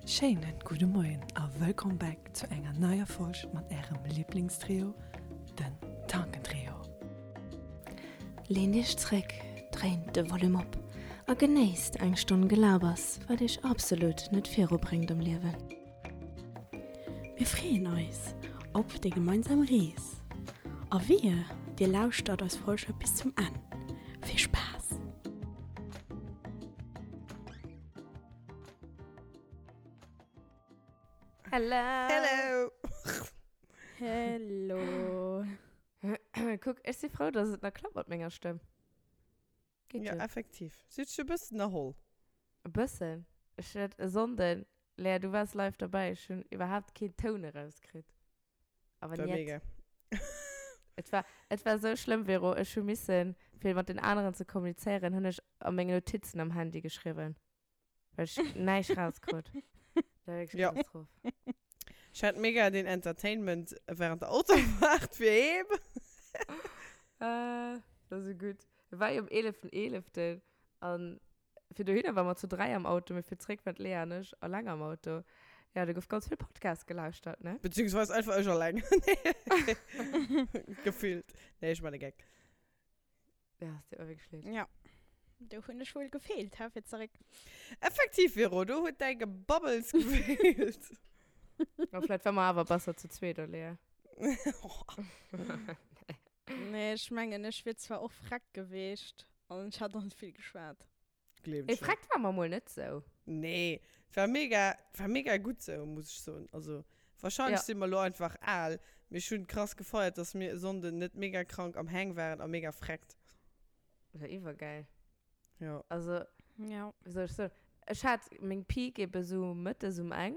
Schéinen gudde Moien a wëllkomm back zu enger neier Folg mat ärem Liblingstrio, den Tankentrio. Leent iech zréck, dréint de Volume op a genéisst eng Stonn Gelabers, wat iech absolut net virubréngt am Liewen. Mir freeën eis op déi gemeinsam Rees a wehe dir lauschtert eis Folge bis zum Enn. Vill Spaass! Hello! Hello! Hello! Kuck, ech si frou, dass et nach klappt mat menger Stëmm. Geet jo. Ja, effektiv. Si huet sech e bëssen erholl. E bëssen. Ech hat e Sonnden, Lea, du waars live derbäi, ech hunn iwwerhaapt keen Toun erauskritt. Awer War niet. mega. Et war, et war sou schlëmm, Vero. Ech hu missen, fir mat den aneren ze kommunizéieren, hunn ech a meng Notizen am Handy geschriwwen. Well ech näischt rauskrut. Dat war wierklech Ja. Katastroph. Ech hat mega den Entertainment während der Autofahrt fir heem. Äh, dat ass esou gutt. Et war jo um 11.11. An fir dohinner ware mer zu 3 am Auto, mee fir zréck waren d'Lea an ech alleng am Auto. Ja, do gouf ganz vill Podcast gelauschtert, ne? Beziehungsweise einfach ech alleng. Gefüllt. Nee, ech man e Geck. Ja, es deet mer wierklech leed. Ja, do hunn ech wuel gefeelt, hä, fir zeréck. Effektiv, Vero, do huet däi Gebabbels gefeelt. Ma vläicht war mer awer besser zu zweet, oder, Lea? Nee, ech mengen, ech wier zwar och freck geweecht an ech hätt och net vill geschwat. Gleewen Mee ech net. freck war mer mol net sou. Nee, et war mega, et war mega gutt sou, muss ech soen. Also, wahrscheinlech Ja. si mer elo einfach al, mee ech hunn krass gefeiert, dass mir e Sonnden net mega krank am Hang waren a mega freckt. War iwwergäil. Ja. Also, Ja. wéi soll ech soen, ech hat meng Peak ebe sou mëttes um eng.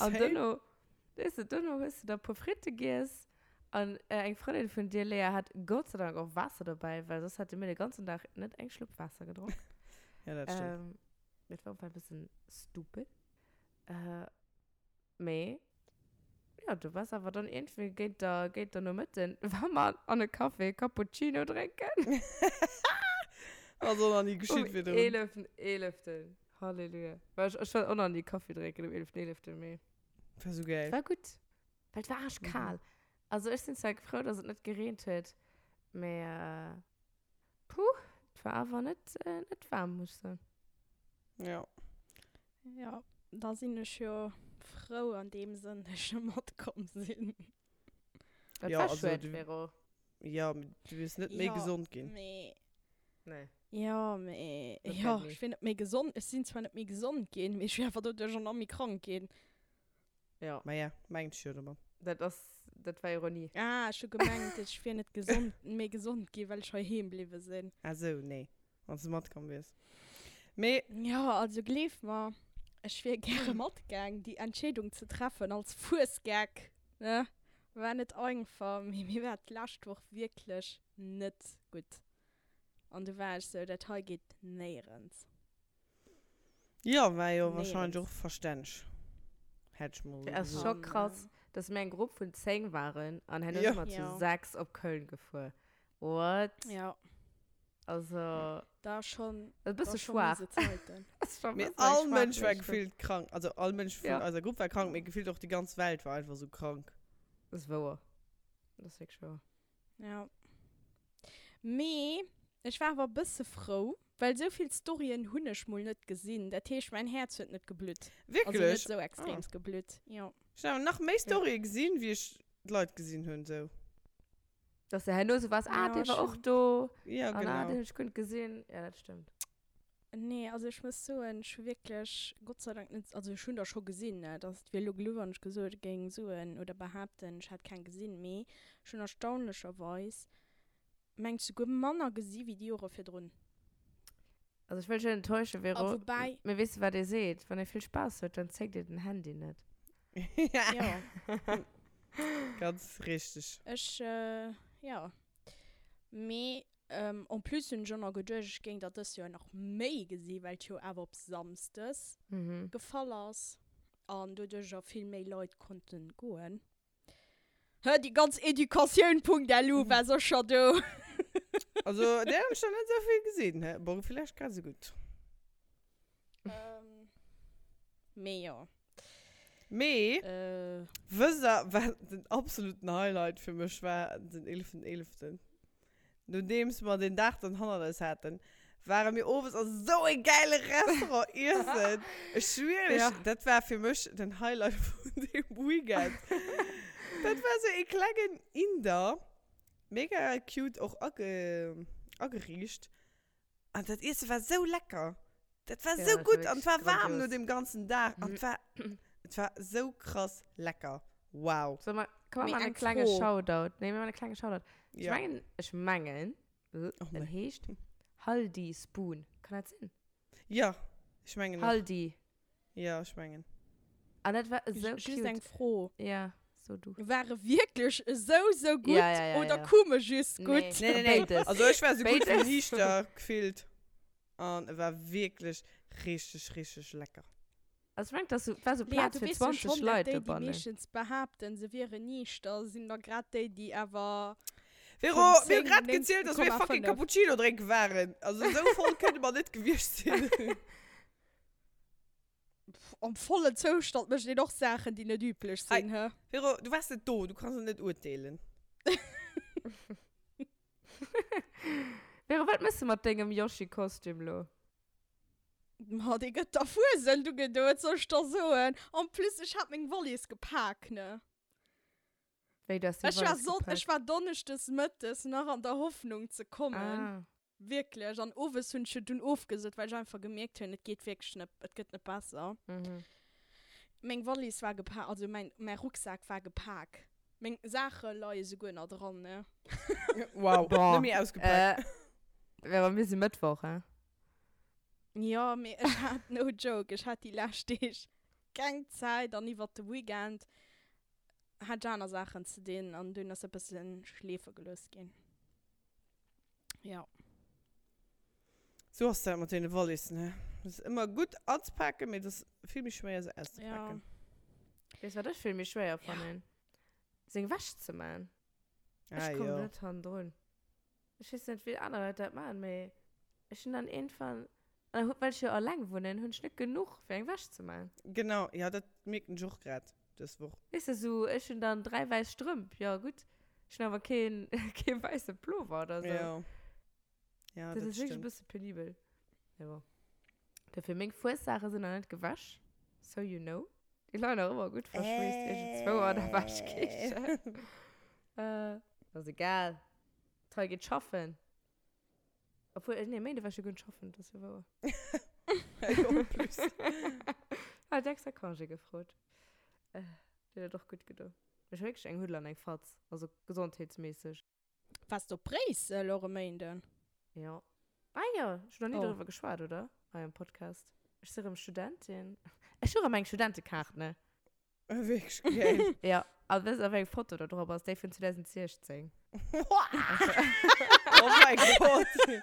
An Same. duerno, weess de, duerno hues de da e puer Fritte giess an eng Frëndin vun dir, Léa, hat Gott sei Dank och Waasser dobäi, well soss hätte mir de ganzen Dag net eng Schlupp Waasser gedronk. Ja, dat stëmmt. Ähm, dat war op e bëssen stupid. Äh, mee ja, du wars awer dann iergendwéi géint der, géint der Nomëtten, war mer an e Café Cappuccino drénken. Ass och nach ni Um geschitt virdrun. 11.11. Halleluja. Well ech, ech war och nach ni Kaffi drénken um 11.11., mee. War sou geil. War gutt. Well et war arschkal. Also ech sinn zwar frou, dass et net gereent huet, mee puh, et war awer net, net waarm, muss ech soen. Ja. Ja, da sinn ech jo frou an deem Sënn, dass ech net matkomm sinn. Dat Ja, war also schued, du- Vero. Ja, mee du wiers net méi Ja, gesond ginn. Mee, Nee. ja, mee, Dat ja, wäert ni. ech wier net méi gesond. Ech sinn zwar net méi gesond ginn, mee ech wier awer doduerch och nach méi krank ginn. Ja. Ma ja, mengt ech jo domat. Dat ass, dat war Ironie. Ah, ech hu gemengt, ech wier net gesond, méi gesond ginn, well ech heiheem bliwwe sinn. Ah sou, nee. Wann s de matkomm wiers. Mee. Jo, also gleef mer, ech wier gäre matgaang. Déi Entscheedung ze treffen als Fuesgeck, ne, war net einfach, mee mir war d'lescht Woch wierklech net gutt. An du war ech sou, dat hei geet néierens. Jo, war jo wahrscheinlech Néierens. och verstänneg, hätt ech mol Et ass gesot. scho An, krass, dass mir eng Grupp vun 10 waren an herno Jo. si mer zu Jo. 6 op Köln gefuer. What? Ja. Also, Da schon, e da bësse schon schwaach. miese Zeiten. Ass schon e Mee bësse all schwaach, Mënsch war wéi ech hunn. gefillt krank. Also all Mënsch vun Ja. eiser Grupp war krank, mee gefillt och déi ganz Welt war einfach sou krank. Dat ass wouer. Dat ass wierklech wouer. Ja. Mee ech war awer e bësse frou, well sou vill Storyen hunn ech mol net gesinn. Dat heescht, mäin Häerz huet net geblutt. Also net Wierklech? sou Ah. extreems geblutt, jo. Ech hunn awer nach méi Storye gesinn, wéi ech d'Leit gesinn hunn, sou. Dass de herno sou waars, ah, Ja, dee war och schonn. do. Ja, An ah, genau. deen hunn ech guer net gesinn. Ja, dat stëmmt. Nee, also ech muss soen, ech hu wierklech Gott sei Dank net, also ech hunn der scho gesinn, ne, dass et wier elo geluff, wann ech gesot géing soen oder behaapten, ech hätt keng gesinn, mee ech hunn erstaunlecherweis, mengt souguer manner gesi wéi déi Jore virdrun. Also ech wëll dech net enttäuschen, A Vero, woubäi. mee weess de wat ee seet, wann ee vill Spaass huet, dann zéckt ee den Handy net. Ja. Ganz richteg. Ech, jo. Mee en plus hunn ech och nach geduecht, ech géing der dëst Joer nach méi gesi well et jo awer op Samsdes gefall ass an doduercher vill méi Leit konnten goen. Hë, déi ganz Educatioun.lu war sécher do. Also där hunn ech der net esou vill gesinn. Bon, villäicht grad esou gutt. Mee jo. Mee, Äh. wësst der, wat den absoluten Highlight fir mech war den 11.11.? Nodeems mer den Dag dann hannert eis haten, ware mir owes a sou e gäile Restaurant iessen. Ech schwieren iech, Ja. dat war fir mech den Highlight vun deem Weekend. Dat war sou e klengen Inder, mega cute och age, ageriicht. An dat Iesse war sou lecker. Dat war Ja, sou dat war gutt an et wierklech war waarm no grandios. deem ganzen Dag an et war, et war sou krass lecker. Wow. So, ma, komm, Mee mer maachen eng e klenge Fro. Shoutout. Nee, mir maachen e klenge Shoutout. Ech Ja. mengen, ech mengen, Oh en nee. heescht Haldi Spoon. Kann dat sinn? Ja, ech mengen och. Haldi. Ja, ech mengen. An dat war esou Just cute. eng Fro. Ja, so du. War e wierklech esou, esou gutt Ja, ja, ja, oder ja. koum e just Nee. gutt? Nee, nee, nee. Béides. Also ech war sou gutt wéi Béides. niichter gefillt. An e war wierklech richteg, richteg lecker. Also ech mengen, dass sou, war sou Lea, Plaz du fir weess jo 20 schonn, dat Leit déi, déi dobannen. meeschtens behaapten, se wieren niichter, sinn da grad déi, déi awer Vero, vun mir hu 10, grad gezielt, dass mir fucking 9,5. Cappuccino drénke waren. Also sou voll kënne mer net gewiescht sinn. Pff, am vollen Zoustand mécht een och Saachen, déi net üblech sinn, hä? Vero, du waars net do, du kanns et net urteelen. Vero, wat mëss de mat dengem Yoshi-Kostüm lo? Ma dee gëtt der Fuesent ugedo, wat soll ech der soen? En plus, ech hat meng Wallis gepak, ne? Wéi, du hast deng Ech war Wallis Sonn, gepak? ech war donneschdes mëttes nach an der Hoffnung ze kommen. Ah. Wierklech. An owes hunn ech jo dunn ofgesot, well ech einfach gemierkt hunn, et geet wierklech net, et gëtt net besser. Mhm. Meng Wallis war gepak, also mäin, mäi Rucksak war gepak. Meng Saache leie souguer nach dran, ne? Wow, Boah. net méi ausgepak. Äh, Vero, mir si Mëttwoch, hein? Jo, mee ech hat, no joke, ech hat déi lescht Deeg keng Zäit an iwwert de Weekend hat ech aner Saachen ze dinn an dunn ass e bëssen schleefe gelooss ginn. Ja. Sou ass dat mat deene Wallissen, he. Et ass ëmmer gutt anzepaken, mee et ass vill méi schwéier se auszepaken. Ja. Weess wat ech vill méi schwéier fannen? Seng Wäsch ze man. Ech Ah, komm jo. net hannendrun. Ech weess net wéi aner Leit dat man, mee ech hunn dann iergendwann, an well ech jo alleng wunnen, hunn ech net genuch fir eng Wäsch ze man. Genau, ja dat mierken ech och grad dës Woch. Weess de, sou ech hunn dann 3 wäiss Strëmp, jo gutt, ech hunn awer keen kee wäisse Plover oder sou. Ja. Ja, Dat dat ass wierklech e stimmt. bësse penibel. Mee bon. Dofir, meng Fuessaache sinn nach net gewäsch, so you know. Déi leien nach ëmmer gutt verschweesst iergendzwou an der Wäschkichen. Äh, ass egal. D'Trei geet schaffen. Obwuel, nee, Méinde war ech jo guer net schaffen, dat ass jo wouer. En plus. Hat extra Congé gefrot. Äh, Dir huet och gutt gedo. Ech hu wierklech eng Huddel an eng Fatz, also gesondheetsméisseg. Waars de op Bréissel och e Méinden? Jo. Ah jo, ech hunn nach ni Oh. doriwwer geschwat, oder? Hei am Podcast. Ech si rëm Studentin. Ech hu rëm eng Studentekaart, ne? Wierklech geil. Jo, a wësst der, wéi eng Foto do drop ass? Déi vun 2016. Oh mäi Gott. Si,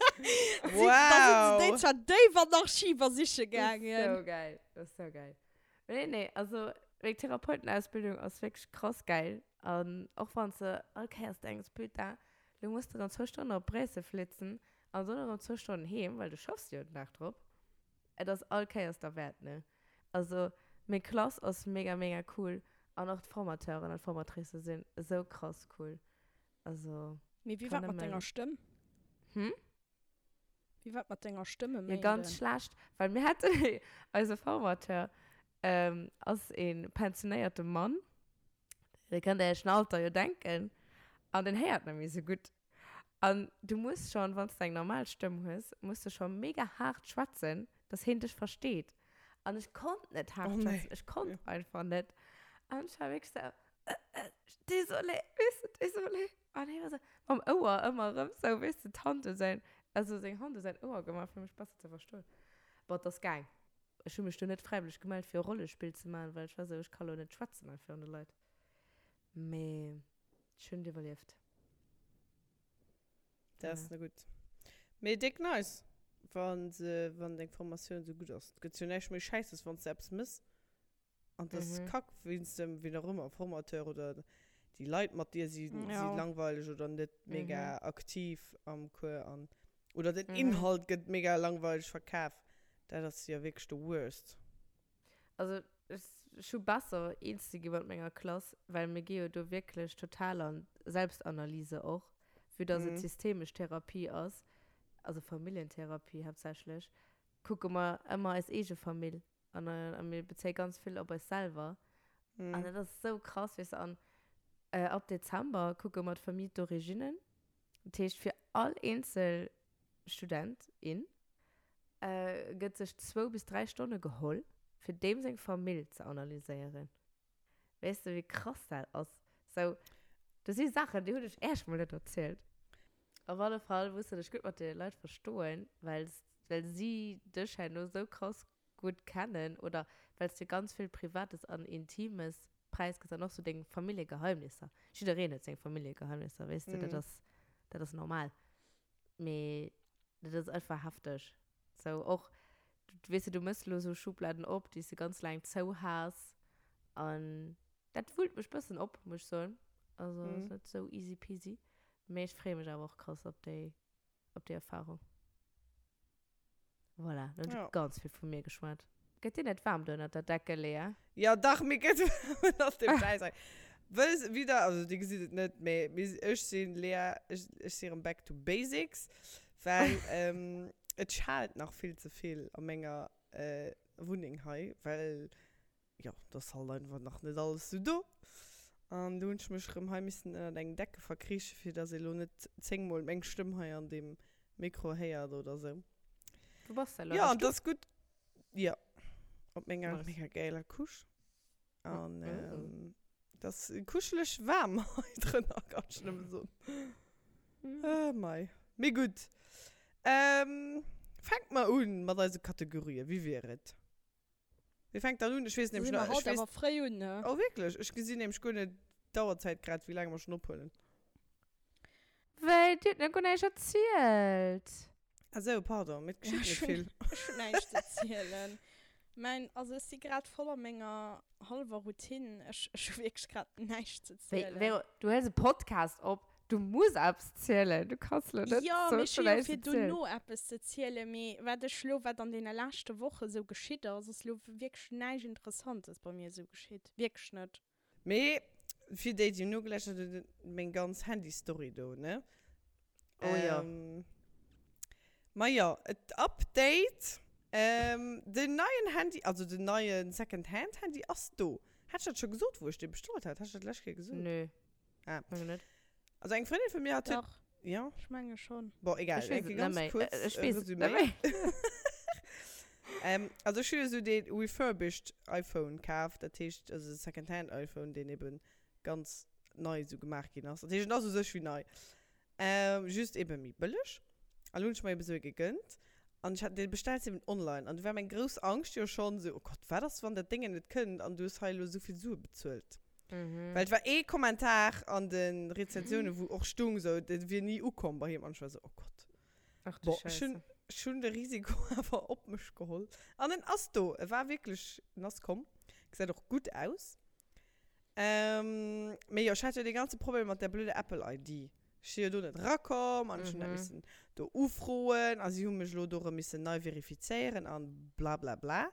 da sinn se déi Wow. zwar déif an d'Archiver siche Das ist gaangen. so geil. Das ist so geil. Nee, nee, also meng Therapeutenausbildung ass wierklech krass geil. An och wann s de all Kéiers denks, putain, lo muss de erëm zwou Stonnen op Bréissel flitzen an dann erëm zwou Stonnen heem, well du schaffs jo den Dag drop. Et ass all Kéiers derwäert, ne? Also meng Klass ass mega, mega cool an och d'Formateuren an d'Formatricë sinn esou krass cool. Also Mee wéi kann war et mat nëmmen. denger Stëmm? Hm? Wéi war et mat denger Stëmm e Jo, ganz Méinden? schlecht, well mir haten eise Formateur ass ee pensionéierte Mann, Dir kënnt Iech den Alter jo denken, an deen héiert net méi esou gutt. An du muss schonn, wann s de eng normal Stëmm hues, muss de scho mega haart schwätzen, dass heen dech versteet. An ech konnt net haart Oh nee. schwätzen, ech konnt einfach net. An ech war wierklech sou, Désolé, weess de, désolé. An hee war sou, mam Ouer ëmmer erëm sou, weess de, d'Hand u säin, also seng Hand u säin Ouer gemaach, fir mech besser ze verstoen. Bon, et ass gaang. Ech hu mech do net fräiwëlleg gemellt, fir e Rollespill ze maachen, well ech war sou, ech ka lo net schwätzen hei virun de Leit. Mee ech hunn et iwwerlieft. Dat ass net gutt. Mee déck nice, wann se, wann deng Formatioun sou gutt ass. Et gëtt jo näischt méi Schäisses, wann s de eppes mëss an et ass Kack wéinst dem, wien och ëmmer, Formateur oder déi Leit mat dir si, si langweileg oder net mega aktiv am Cours an, oder den Inhalt gëtt mega langweileg verkaf. Dat ass jo wierklech de worst. Also ech hu besser eens ze gi mat menger Klass, well mir gi jo do wierklech total an Selbstanalyse och, vue dass et systemesch Therapie ass, also Familljentherapie haaptsächlech, kucke mer ëmmer eis eege Famill an a mir bezéie ganz vill op eis selwer. An dat ass esou krass, weess de. An ab Dezember kucke mer d'Famille d'origine, dat heescht fir all eenzel Student, in, gëtt sech zwou bis 3 Stonne geholl, fir deem seng Famill ze analyséieren. Weess de, wéi krass dat ass? Sou, do si Saachen, déi hunn ech Äech mol net erzielt. Op alle Fall muss de dech gutt mat deene Leit verstoen, well well si dech herno sou krass gutt kennen oder well s de ganz vill Privates an Intimes präisgëss an och sou deng Familljegeheimnisser. Jiddereen huet seng Familljegeheimnisser, weess de, dat ass dat ass normal. Mee dat ass einfach hefteg. Sou och, weess de, du mëss lo sou Schubladen op, déi s de ganz laang zou has. An dat wullt mech bëssen op, muss ech soen. Also ass net sou easy peasy. Mee ech freeë mech awer och krass op déi, op déi Erfarung. Voilà, lo hunn ech ganz vill vu mir geschwat. Gëtt dir net waarm do ënnert der Decke, Lea? Jo, dach, mir gëtt waarm ënnert dem Schäissdreck. Wëll wieder, also dir gesitt et net, mee mir, ech sinn, Lea, ech, ech si erëm back to basics, well et schaalt nach vill ze vill a menger Wunneng hei, well jo, et ass halt einfach nach net alles sou do. An do hunn ech mech erëm hei missen ënnert eng Decke verkriichen, fir dass ee lo net zéngmol meng Stëmm hei an deem Mikro héiert oder sou. Wou bass de elo? Jo, an et ass gutt. Jo, op menger Nice. mega gäiler Couche. An et ass kuscheleg waarm hei drënner, kann ech nëmme soen. Ah, mei. Mee gutt. Fänke mer un mat eise Kategorien, wéi wier et? Wie fänkt dann un? Ech weess nämlech nach. Haut awer fréi un, ne? Oh wierklech? Ech gesinn nämlech guer net d'Auerzäit grad, wéi laang mer schonn ophuelen. Wéi, Dir hutt nach guer näischt erzielt. Ah sou, pardon, mee et geschitt net vill. Ech hunn näischt ze erzielen. Mäin, also ech si grad voll a menger hallwer Routine. Ech hu wierklech grad näischt ze zielen. Wéi, Véro, du huels e Podcast op. Du muss eppes zielen, du kanns lo net Jo, mee ech hu jo fir dono eppes ze zielen, mee wat ech lo, wat an deene leschte Woche sou geschitt ass, ass lo wierklech näischt Interessantes bei mir sou geschitt, wierklech net. Mee fir déi, déi nogeläuschtert hunn, meng ganz Handy-Story do, ne? Oh jo. Ma jo, et Update, den neien Handy, also den neie Second-Hand-Handy ass do. Hat ech dat scho gesot, wou ech dee bestallt hat? Hat ech dat d'lescht Kéier gesot? Nö. Ah. Menge net. Also eng Frëndin vun mir hat Dach. Ja. Ech menge schon. Bon, egal. Ech weess Eng et net ganz méi. kurz Ech weess et Resümee. net méi. Ähm, also ech hu jo sou dee refurbished iPhone kaf, dat heescht also Secondhand iPhone, deen eben ganz nei sou gemaach ginn ass. Dat heescht en ass u sech wéi nei. Ähm, just eben méi bëlleg. An lo hunn ech mer eben sou ee gegënnt. An ech hat dee bestellt eben online. An du war meng grouss Angscht jo schonn sou, oh Gott, wat ass wann dat Déngen net kënnt an du hues hei elo sou vill Sue bezuelt. Mhm. Well et war ee Kommentar an de Rezensiounen, wou och stung sou, dat wier ni ukomm bei him. An ech war sou, oh Gott. Ach du Bon, ech hunn, Scheisse. ech hunn de Risiko awer op mech geholl. An en ass do. E war wierklech, en ass komm. Gesäit och gutt aus. Ähm, mee jo, ech hat jo dee ganze Problem mat där blöder Apple ID. Ech si jo do net erakomm an ech hunn dat Mhm. missen do ufroen a si hu mech elo do erëm missen nei verifizéieren an blablabla.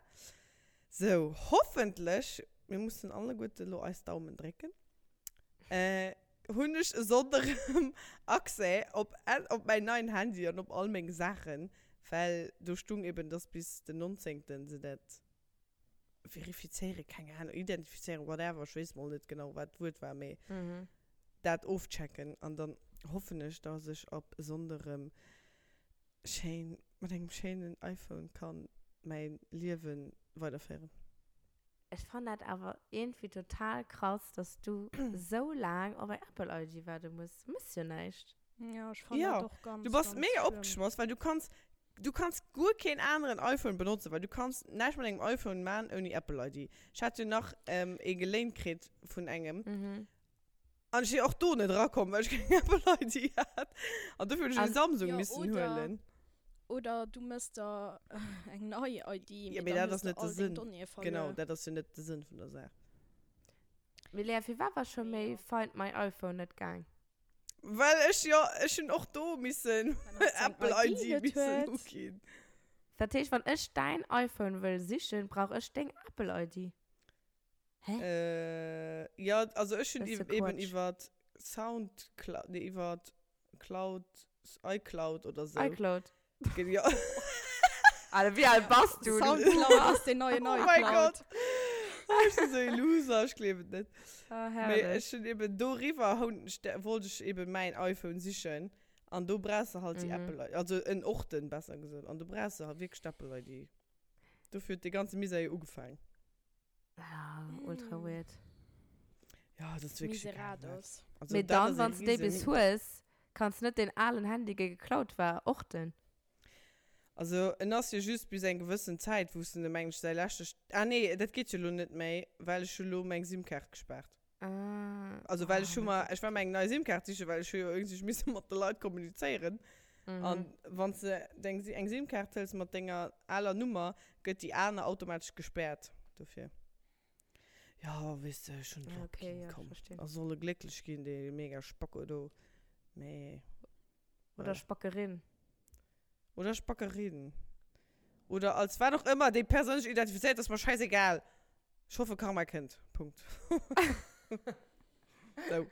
Sou, hoffentlech, mir mussen alleguerte lo eis Daumen drécken, äh, hunn ech e Sonndeg erëm Accès op, op mäin neien Handy an op all meng Saachen, well do stung eben, dass bis den 19. se dat verifizéieren, keng Ahnung, identifizéieren, whatever, ech weess mol net genau, wat d'Wuert war, mee dat ofchecken an dann hoffen ech, dass ech ab e Sonndeg erëm schéin mat engem schéinen iPhone kann mäin Liewen weiderféieren. Ech fannen dat awer iergendwéi total krass, dass du sou laang op eng Apple ID waarde muss. Du mëss jo näischt. Ja, ech fannen dat och ganz, Du bass ganz mega schlëmm. opgeschmoss, well du kanns, du kanns guer keen aneren iPhone benotzen, well du kanns näischt mat engem iPhone man ouni Apple ID. Ech hat jo nach ee geléint kritt vun engem. An ech si och do net erakomm, well ech keng Apple ID hat. An dofir hunn ech e Samsung Jo, missen oder, huelen. oder du mëss der eng nei ID, Ja, mee mee dann dat hues ass de net de all deng Sënn. Donnéeë Genau, verluer. dat ass jo net de Sënn vun der Saach. Mee Lea, firwat war scho Mee méi jo. Find my iPhone net gaang? Well ech jo, ech hunn och do missen Well hatt seng Apple ID ID net missen huet. uginn. Dat heescht, wann ech däin iPhone wëll sichen, brauch ech deng Apple-ID? Hä? Äh, jo, also ech hunn eben iwwer Soundcloud, nee, iwwer Cloud, iCloud oder sou. iCloud. Jo. Alter, wéi al bass du? Soundcloud ass den neien iCloud. Oh mein Gott. Oh, ech sinn sou ee Loser, ech gleewen et net. Oh, herrlech. Mee ech hunn eben doriwwer, wollt ech eben mäin iPhone sichen. An do brauchs de halt déi Apple ID, also en Orten, besser gesot. An do brauchs de halt wierklech d'Apple ID. Dofir huet dee ganze Misär jo ugefaang. Ja, ultra weird. Ja, dat ass wierklech egal. Miserados. Also, Mee dat dann, ass e wann s de déi riesen bis hues, kanns net deen alen Handy, dee geklaut war, orten. Also, en ass jo just bis eng gewëssen Zäit, wou s de, mengen ech, säi leschte, ah nee, dat geet jo elo net méi, well ech hu lo meng SIM-Kaart gespaart. Ah. Also, well ech Oh hu mein mer, Gott. ech war mer eng nei SIM-Kaart sichen, well ech hu jo iergendwéi misse mat de Leit kommunizéieren. Mhm. An wann s de deng, eng SIM-Kaart hëls mat denger aler Nummer, gëtt déi aner automatesch gespäert. Dofir. Ja, weess de, ech hunn et Ah, okay, opginn, ja, komm. verstinn. A soll e glécklech ginn, dee mega Spacko do. Mee. Oder Voilà. Spackerin. Oder Spackerin. Oder als wat och ëmmer déi Persoun sech identifizéiert, ass mer scheißegal. Ech hoffe Karma kënnt. Punkt. Sou.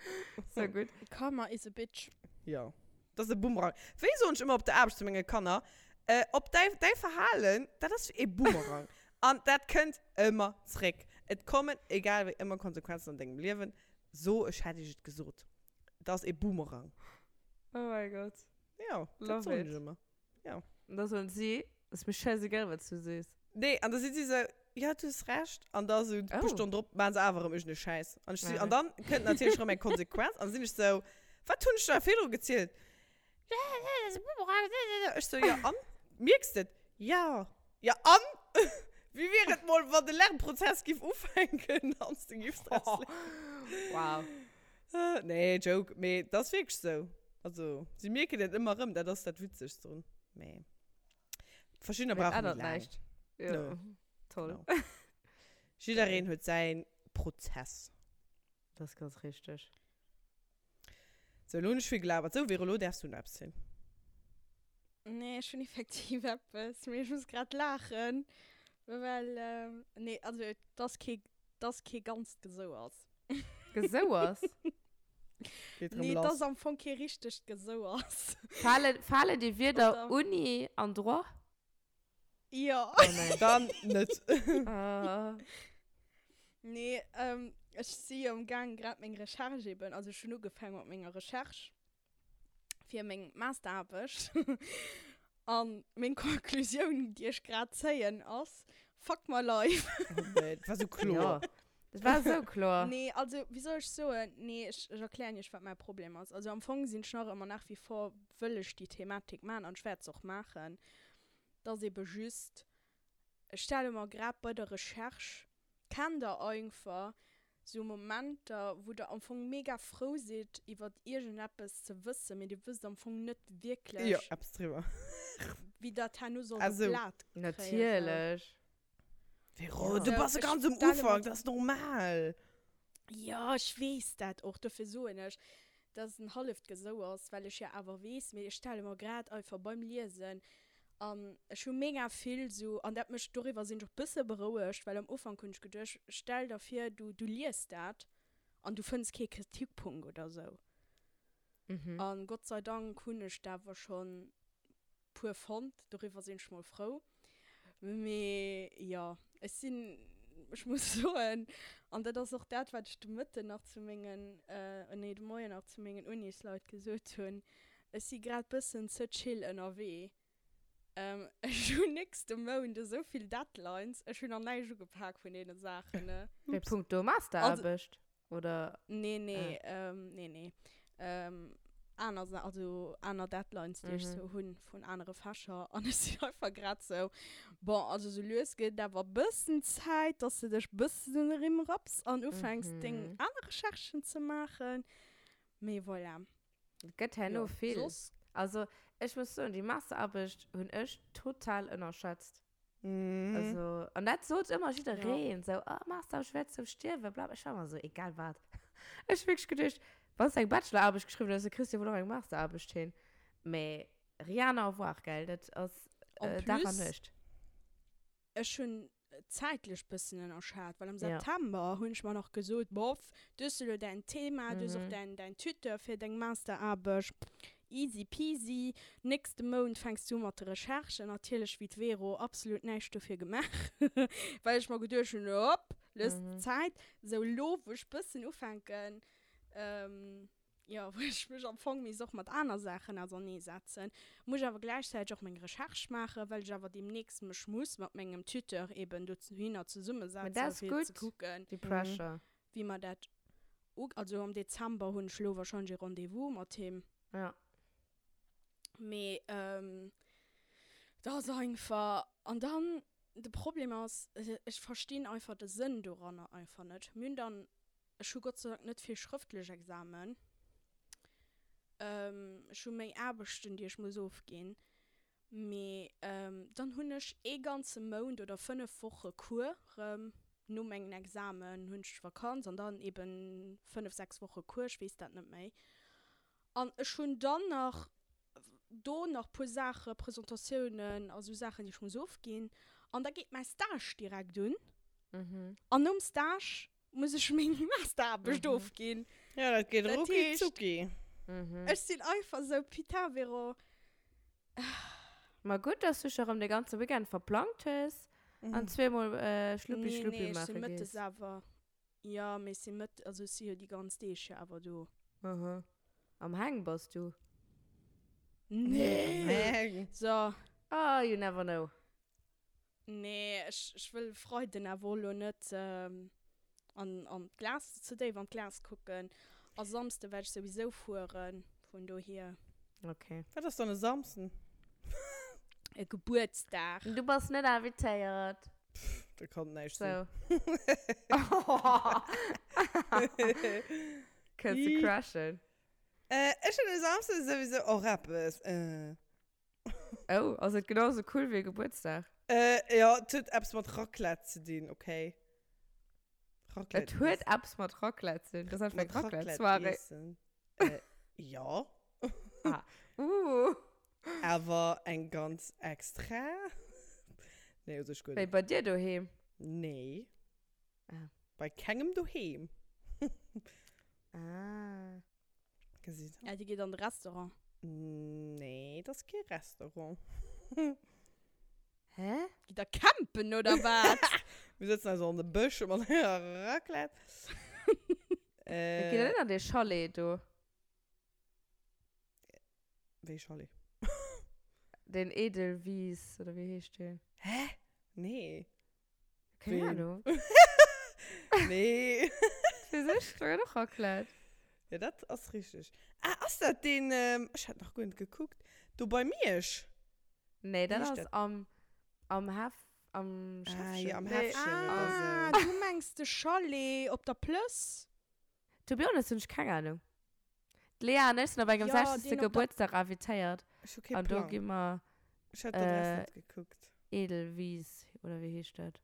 Sou gutt. Karma is a bitch. Jo. Dat ass e Boomerang. Wéi soen ech ëmmer op der Aarbecht zu menge Kanner, äh, op däi, däi Verhalen, dat ass wéi e Boomerang. An dat kënnt ëmmer zréck. Et kommen, egal wéi, ëmmer Konsequenzen an dengem Liewen. So, ech hätt iech et gesot. Dat ass e Boomerang. Oh mäi Gott. Jo, dat Love soen it. ech ëmmer. Ja. An da soen si, Ass mir scheißegal, wat s du sees. Nee, an da si si sou, Ja, du hues Recht. An da sou e puer Oh. Stonnen drop maachen se awer erëm iergendee Schäiss. An ech si, Ja. an dann kënnt natierlech erëm eng Konsequenz. An da sinn ech sou, Wat hunn ech der virdru gezielt? Ech sou, Jo, an? Mierks de et? Ja. Ja, an? Wéi wier et mol, wann de Lernprozess giff ufänken an s de giffs draus léieren? Wow. Nee, Joke, mee et ass wierklech sou. Also, si mierken et ëmmer erëm, dat ass dat Witzegst drun. Mee verschiddener Mee et brauche méi ännert laang. näischt. Jo, Nö. toll. Genau. Jiddereen huet säi Prozess. Dat ass ganz richteg. Sou, elo hunn ech vill gelabert. Sou, Vero, elo däerfs du nach eppes zielen. Nee, ech hunn effektiv eppes, mee ech muss grad laachen, well, nee, also et ass kee, et ass kee ganzt Gesouers. Gesouers? Geet rëm Nee, et lass. ass am Fong kee richtegt Gesouers. Fale, falen déi Wierder Oder? Uni an Droit? Jo. Oh nein. Dann net. Ah. Nee, ähm, ech si jo am Gaang grad meng Recherche eben, also ech hunn ugefaangen mat menger Recherche fir meng Masteraarbecht. An meng Conclusioun, déi ech grad zéien, ass, Fuck my life. Oh nee, dat war sou kloer. Ja, dat war sou kloer. Nee, also, wéi soll ech soen? Nee, ech, ech erklären iech, wat mäi Problem ass. Also am Fong sinn ech nach ëmmer nach wie vor, wëll ech déi Thematik maachen an ech wäert se och maachen. Et ass ebe just, ech stelle mer grad bei der Recherche, kennt der einfach sou Momenter, wou der am Fong mega frou sidd iwwert iergendeppes ze wëssen, mee dir wësst am Fong net Jo, wierklech, eppes driwwer. wéi dat herno sollt Ah op sou. d'Blat kréien. Sou. Natierlech. Vero, Ja. du Sou, bass ech ganz um stelle mer Ufank, dat ass normal. Jo, ech weess dat och, dofir soen ech, dass et en halleft Gesou ass, well ech jo awer weess, mee ech stelle mer grad einfach beim Liesen an ech hu mega vill sou, an dat mécht, doriwwer sinn ech och bësse berouegt, well am Ufank hunn ech geduecht, stell der vir, du, du liest dat an du fënns kee Kritikpunkt oder sou. Mhm. An Gott sei Dank hunn ech der awer schonn puer fonnt, doriwwer sinn ech mol frou. Mee jo, ech sinn, ech muss soen, an dat ass och dat, wat ech de Mëtten nach zu mengen, nee de Moien nach zu mengen Unisleit gesot hunn, ech si grad bëssen ze chill ënnerwee. Ech hunn nächste Mount esou vill Deadlines, ech hunn nach näischt ugepak vun deene Saachen, ne. Wéi punkto Masteraarbecht? Oder? Nee, nee, ah. ähm, nee, nee. Ähm, aner, also aner Deadlines, déi mhm. ech sou hunn vun anere Fächer. An ech sinn einfach grad sou, bon, also sou lues gëtt awer bëssen Zäit, dass de dech bëssen den Rimm rapps an ufänks, mhm. deng aner Recherchen ze maachen. Mee voilà. Et gëtt herno Jo, vill. soss. Also, ech muss soen, déi Masteraarbecht hunn ech total ënnerschätzt. Mhm. Also, an dat sot ëmmer jiddereen, sou, oh, Masteraarbecht, ech wäert sou stierwen, bla, bla. Ech war ëmmer sou, egal wat. Ech hu wierklech geduecht, wann s de eng Bachelor-Aarbecht geschriwwen hues, da kriss de wuel och eng Masteraarbecht hin. Mee rien à voir, gell, dat ass En Dag an plus, Nuecht. Ech hunn zäitlech bëssen ënnerschat, well am September hunn ech mer nach gesot, boff, du hues elo däin Thema, du hues och däin, däin Tuteur fir deng Masteraarbecht, easy peasy, nächste Mount fänks du u mat de Recherchen. Natierlech wéi d'Vero absolut näischt dofir gemaach, well ech mer geduecht hunn, hopp, looss Zäit. Sou elo wou ech bëssen ufänken, jo, wou ech mech am Fong misst och mat aner Saachen auserneesetzen, muss ech awer gläichzäiteg och meng Recherche maachen, well ech awer deemnächst mech muss mat mengem Tuteur eben dohinner Mä dat zesummesetzen, ass fir ze gutt, kucken, déi Pressure. wéi mer dat u-, also am Dezember hunn ech elo wahrscheinlech e Rendez-vous mat him. Ja. Mee dat ass einfach, an dann de Problem ass, ech verstinn einfach de Sënn doranner einfach net. Mir hunn dann Ech hu Gott sei Dank net vill schrëftlech Examen. Ech hu méi Aarbechten, déi ech muss ofginn. Mee dann hunn ech ee ganze Mount oder 5 Woche Cours erëm. No mengen Examen hunn ech Vakanz an dann eben 5, 6 Woche Cours, ech weess dat net méi. An ech hunn dann nach do nach puer Saache, Presentatiounen a sou Saachen, déi ech muss ofginn. An da geet mäi Stage direkt un. An nom Stage muss ech meng Masteraarbecht ofginn. Ja, dat geet Dat rucki heescht, zucki. ech sinn einfach sou, putain Véro. Ma gutt, dass du dech erëm de ganze Weekend verplangt hues an zweemol Schluppi Nee, Schluppi nee, ech maache sinn mëttes gees. awer, jo, mee ech sinn mëtt, also ech si jo déi ganz Deeg jo awer do. Aha. Am Hang bass du? Nee! Am Hang. So. Ah, you never know. Nee, ech, ech wëll Freiden awer och elo net an, an d'Glas, ze déif an d'Glas kucken. A Samsde wäert ech souwisou fueren, vun dohier. Okay. Wat ass dann e Samsden? E Gebuertsdag. Du bass net invitéiert. Pff, dat kann näischt sinn. So. Kënns de crashen? Ech hunn e Samsden souwisou och eppes. Oh, ass et genau sou cool wéi e Gebuertsdag? Äh, jo, et huet eppes mat Raclette ze dinn, okay? Raclette Et huet eppes mat Raclette ze dinn? Dat ass einfach eng Raclette-Soirée. Iessen. Äh, jo. Ah, uh. Awer eng ganz extra. Nee, u sech guer Wéi net. bei dir doheem? Nee. Ah. Bei kengem doheem. Ah. Gesitt. Ja, déi geet an de Restaurant. Nee, dat ass kee Restaurant. Hä? Gitt der campen oder wat? Mir sëtzen also an de Bësch mat enger Raclette. Äh, Gitt der net an dee Chalet do? Wéi Chalet? Den Edelwies, oder wéi heescht deen? Hä? Nee. Keng Ahnung. Nee. Fir sech, da gëtt och Raclette. Ja, dat ass richtig. Ah, ass dat deen, ähm, ech hat nach guer net gekuckt, do bei Miersch? Nee, dat Wéi heescht ass dat? am, am Hef, am Ah, Schäffchen. ja, am Nee, Häffchen oder Ah, sou. du mengs de Chalet op der Plëss? To be honest hunn ech keng Ahnung. D'Lea an ech sinn op engem Ja, 60. deen op der. Gebuertsdag invitéiert Ech hu kee an do Plang. gi mer Ech hat d'Adress äh, net gekuckt. Edelwies, oder wéi heescht dat?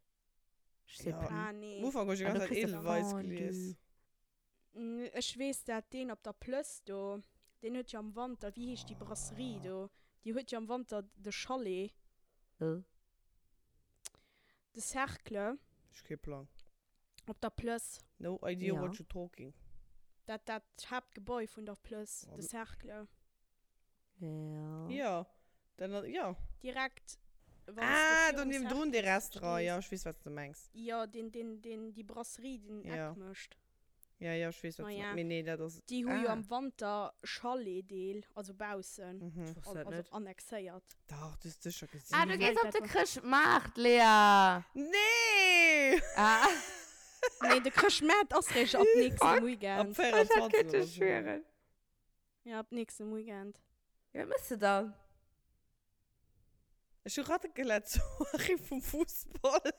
Ech sais Ja, plus. Ah, am nee. Ufank hu ech déi An ganz do Zäit kriss de Edelweiss Fondue. gelies. Ech weess dat, deen op der Plëss do, deen huet jo am Wanter, wéi heescht déi Brasserie do? Déi huet jo am Wanter de Chalet. Äh. De Cercle. Ech hu kee Plang. Op der Plëss. No idea Ja. what you talking. Dat, dat Haaptgebäu vun der Plëss, de Cercle. Ja. Ja, dann, ja. Direkt, wann s de Ah, do virum niewendrun dee Cercle Restaurant, stees. ja, ech weess, wat s de mengs. Jo, deen, deen, deen, déi Brasserie, déi den Ja. Eck mécht. Ja, ja, ech weess, wat s de Naja, mengs. Mee nee, dat ass, déi hu jo ah. am Wanter Chalet-Deel, also baussen, Mhm. Ech wosst dat also net. annexéiert. Dach, du hues sécher gesinn. Ah, du Well gees op dat de war. Chrëschtmaart, Lea! Nee! Ah. Nee, de Chrëschtmaart ass réischt ab nächstem Fuck. Ab Weekend. Ech hätt 24 kënnte oder sou. schwieren. Ja, ab nächstem Weekend. Ja, wat mëss de dann? Ech hu Raclette-Soirée vum Fussball.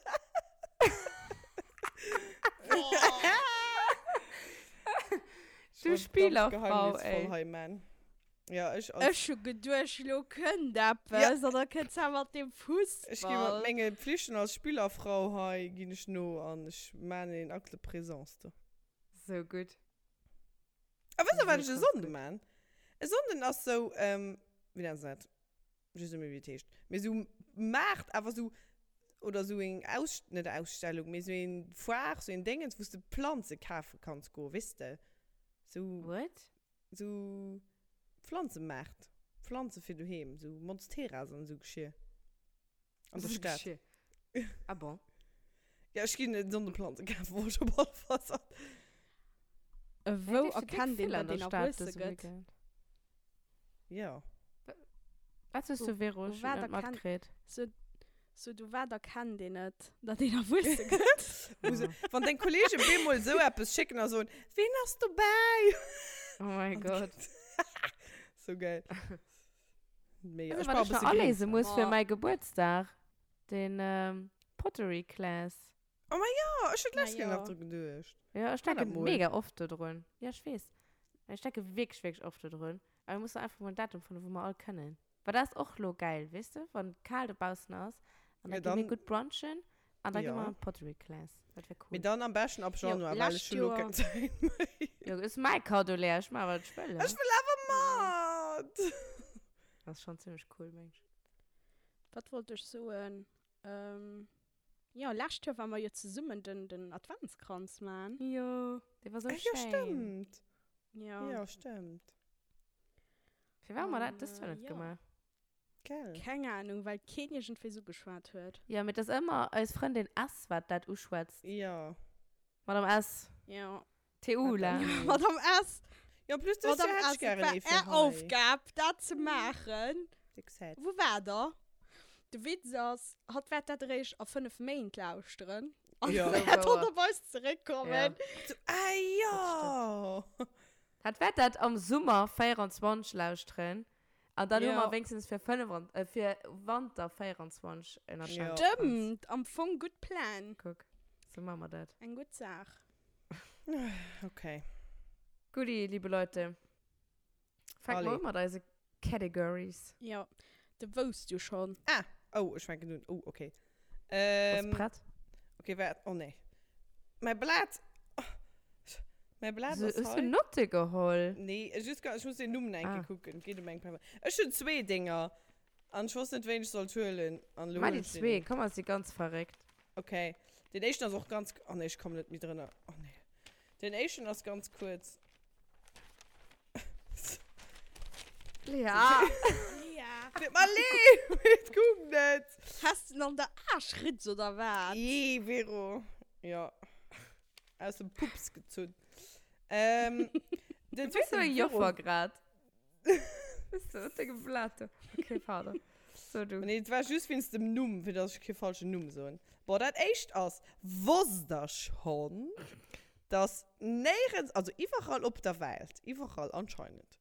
Du Spielerfrau, ey. Hei, man. Ja, ech als. Ech hu geduecht, lo kënnt eppes an da kënnt se mat dem Fussball. Ech gi mat menge Pflichten als Spielerfrau hei ginn ech no an ech man een Acte de présence do. Sou gutt. A wësst der wat Sou ech e krass Sonnden gutt. man? E Sonnden ass sou, wéi nennt se dat? Ech weess net méi wéi et heescht. Mee sou Maart, awer sou. oder sou eng Aus, net Ausstellung, mee sou eng Foire, sou een Déngens, wou s de Planze kafe kanns goen, weess de? Sou. What? Sou Pflanzemaart, Pflanze fir doheem, sou Monsteras an esou Geschir. An der Stad. Ah bon? Ja, ech ginn net Sonneplanze kafen, wou ech op alle Fall sat. Wou erkennt een, datt een erwuesse gëtt? Ja. Wat soos du, Vero? Ech hunn net matkritt. Sou, du wat erkennt een et, datt een erwuesse gëtt? Wann deng Kollegen bemol esou eppes schécken a soen, Ween ass dobäi? Oh mein Gott. Sou geil. Mega. Weißt du, wat ech nach aléise muss fir mäi Gebuertsdag? Den Pottery Class. Oh ma jo, ech hunn d'lescht Kéier nach dru geduecht. Jo, ech denke mega oft dodrun. Jo, ech weess. Ech denke wierklech, wierklech oft dodrun. Awer mir mussen einfach mol en Datum fannen, wou mer all kënnen. Well dat ass och lo geil, weess de, wann et kal dobaussen ass. An da gi mir gutt brunchen an da gi mer an d'Pottery Class. Dat wär cool. Mee dann am beschten ab Januar, well ech hunn lo keng Zäit méi. Jo, ass mäi Kaddo, Lea. Ech maache wat ech wëll. Ech wëll awer mat! Dat ass schonn zimmlech cool, meng ech. Wat wollt ech soen? Jo, lescht Joer ware mer jo zesummen den, den Adventskranz man. Jo, dee war sou Ah, jo, schéin. stëmmt. Jo. Jo, stëmmt. Firwat hu mer An, dat dëst Joer net jo. gemaach? Gell. Keng Ahnung, well keen iergendwéi sou geschwat huet. Jo, mee et ass ëmmer eis Frëndin S, wat dat uschwätzt. Jo. Madame S. Jo. TU, la. Madame S. Jo, plus dëst Joer Madame hätt S, ech gären et ee war fir är hei. Aufgab, dat ze maachen. Déck sad. Wou war der? De Witz ass, hatt wäert dat eréischt a 5 Méint lauschteren. An Ja. wäert dann op eis zeréckkommen. Ja. So, ah jo! Hatt wäert dat am Summer 24 lauschteren. An dann hu Ja. mer wéinstens fir 5, äh, fir Wanter 24 en Ja. Adventskranz. Stëmmt, am Fong gutt Pläng. Kuck, sou maache mer dat. Eng gutt Saach. Okay. Gutti, liebe Leute. Fänke mer Allez. un mat eise Categories. Jo, de wousst jo schonn. Ah, oh, ech fänken un. Oh, okay. Bass Ähm, prett? okay, waart. Oh nee. Mäi Blat. Oh, mäi Blat So, ass hues du hei. Notte geholl? Nee, just, ech muss den Numm nach eng Ah. Kéier kucken. Et geet ëm eng Persoun. Ech hunn zwee Dénger. An ech wosst net, wéin ech sollt huelen. An elo Mach hunn déi ech den zwee, een. komm, ass si ganz verréckt. Okay. Den éischten ass och ganz. Oh nee, ech kommen net méi drënner. Oh nee. Den éischten ass ganz kuerz. Lea! Lea! Tut mer leed, mee et goung net. Has de en an der Aarschritz oder wat? Jee, Vero. Ja. Aus dem Pups gezunn. Ähm, den Du bist so zweiten eng Vero. Joffer grad. Bist du mat dengem Blat do. Okay, pardon. So, du. Nee, et war just wéinst dem Numm, fir dass ech kee falschen Numm soen. Bon, dat éischt ass, Wosst der schonn, dass néierens, also iwwerall op der Welt, iwwerall anscheinend,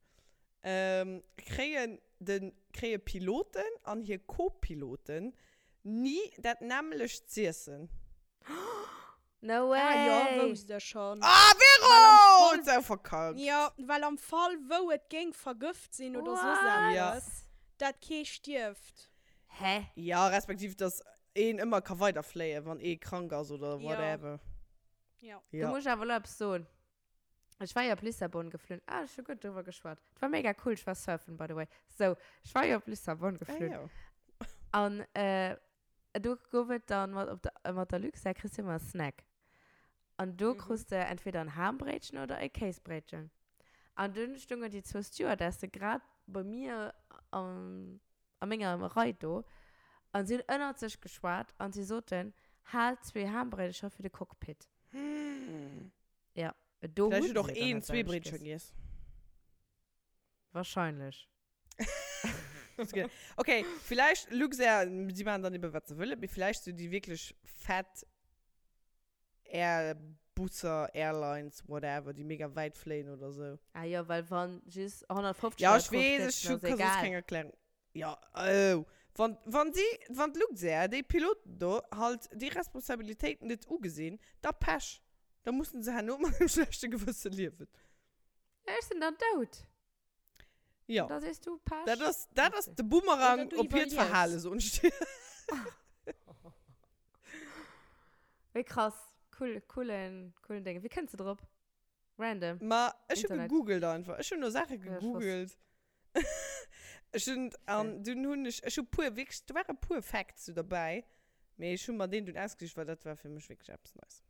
ähm, kréien de, kréie Piloten an hir Co-Piloten ni dat nämmlecht z'iessen? No way! Ah jo, wousst ech schon. Ah, Well am Vero! Fall, Huet se auch verkackt. jo, well am Fall wou et géing vergëft sinn oder soss What? Ja. eppes, dat kee stierft. Hä? Ja, respektiv, dass een ëmmer ka weiderfléien, wann ee krank ass oder Ja. whatever. Ja. Do Ja. muss ech awer elo eppes soen. Ech war jo op Lissabon geflunn. Ah, ech hu gutt driwwer geschwat. Et war mega cool, ech war surfen, by the way. Sou, ech war jo op Lissabon Ah, geflunn. jo. An äh, do gouf et dann mat, op der, mat der Luxair kriss du ëmmer e Snack. An do Mhm. krus de entweder en Haambréitchen oder e Kéisbréitchen. An dunn stungen déi zwou Stewardesse grad bei mir am, a menger Rei do an si hunn ënnert sech geschwat an si soten, Haalt zwee Haambréidecher fir de Cockpit. Ja, do Vläicht hunn huet och se dann een dat zwee selwecht Bréitcher giess. giess. Wahrscheinlech. Okay, vielleicht Luxair, si maachen dann eben, wat se wëllen, mee vielleicht sou déi wierklech fett Airbusser, Airlines, whatever, déi mega wäit fléien oder sou. Ah jo, well wann just 150 Ja, Leit ech weess, drauf ech sëtzen, hu ass ka soss egal. keng Erklärung. Ja, oh. Wann, wann si, wann d'Luxair, déi Piloten do, halt déi Responsabilitéit net ugesinn, da Pech. Da mussen se herno mat engem schlechte Gewësse liewen. Ja, ech sinn dann dout. Ja. Da sees du Pech. Dat ass, dat ass de Boomerang Oder du op hiert iwwerliefs. Verhale, soen ech dir. Wéi krass. Cool, coolen, coolen Ding. Wéi kënns de drop? Random. Ma ech hu Internet. gegoogelt einfach. Ech hunn no Saache Ja, ech wosst. gegoogelt. Ech hunn, an dunn hunn ech, ech hu puer, wierklech, do ware puer Facts sou derbäi. Mee ech hu mer deen dunn ausgesicht, well dat war fir mech wierklech eppes Neies.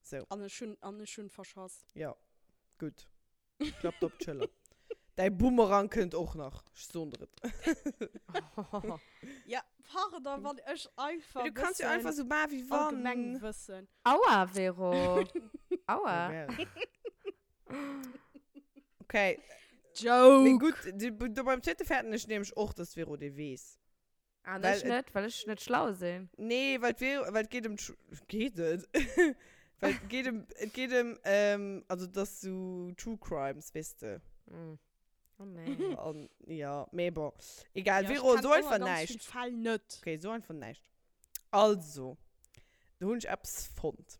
Sou. An ech hunn, an ech hunn verschass. Jo, gutt. Klappt op d'Schëller. Däi Boomerang kënnt och nach, ech soen der et. Ja, pardon, wann ech einfach Du kanns jo einfach sou maachen, wéi wann. Allgemengwëssen. Aua, Vero. Aua. Okay. Joke! Mee gutt, do beim zweete fäerten ech nämlech och, dass d'Vero dee weess. An ech net, well ech net schlau sinn. Nee, well d'Vero, well et geet ëm d'Sch-, geet et? Well et geet ëm, et geet ëm, also et ass sou True Crimes, weess de. Oh nee. An, ja, mee bon. Egal, Vero, so einfach näischt. Ech kenn och ganz vill Fäll net. Okay, so einfach näischt. Also, do hunn ech eppes fonnt.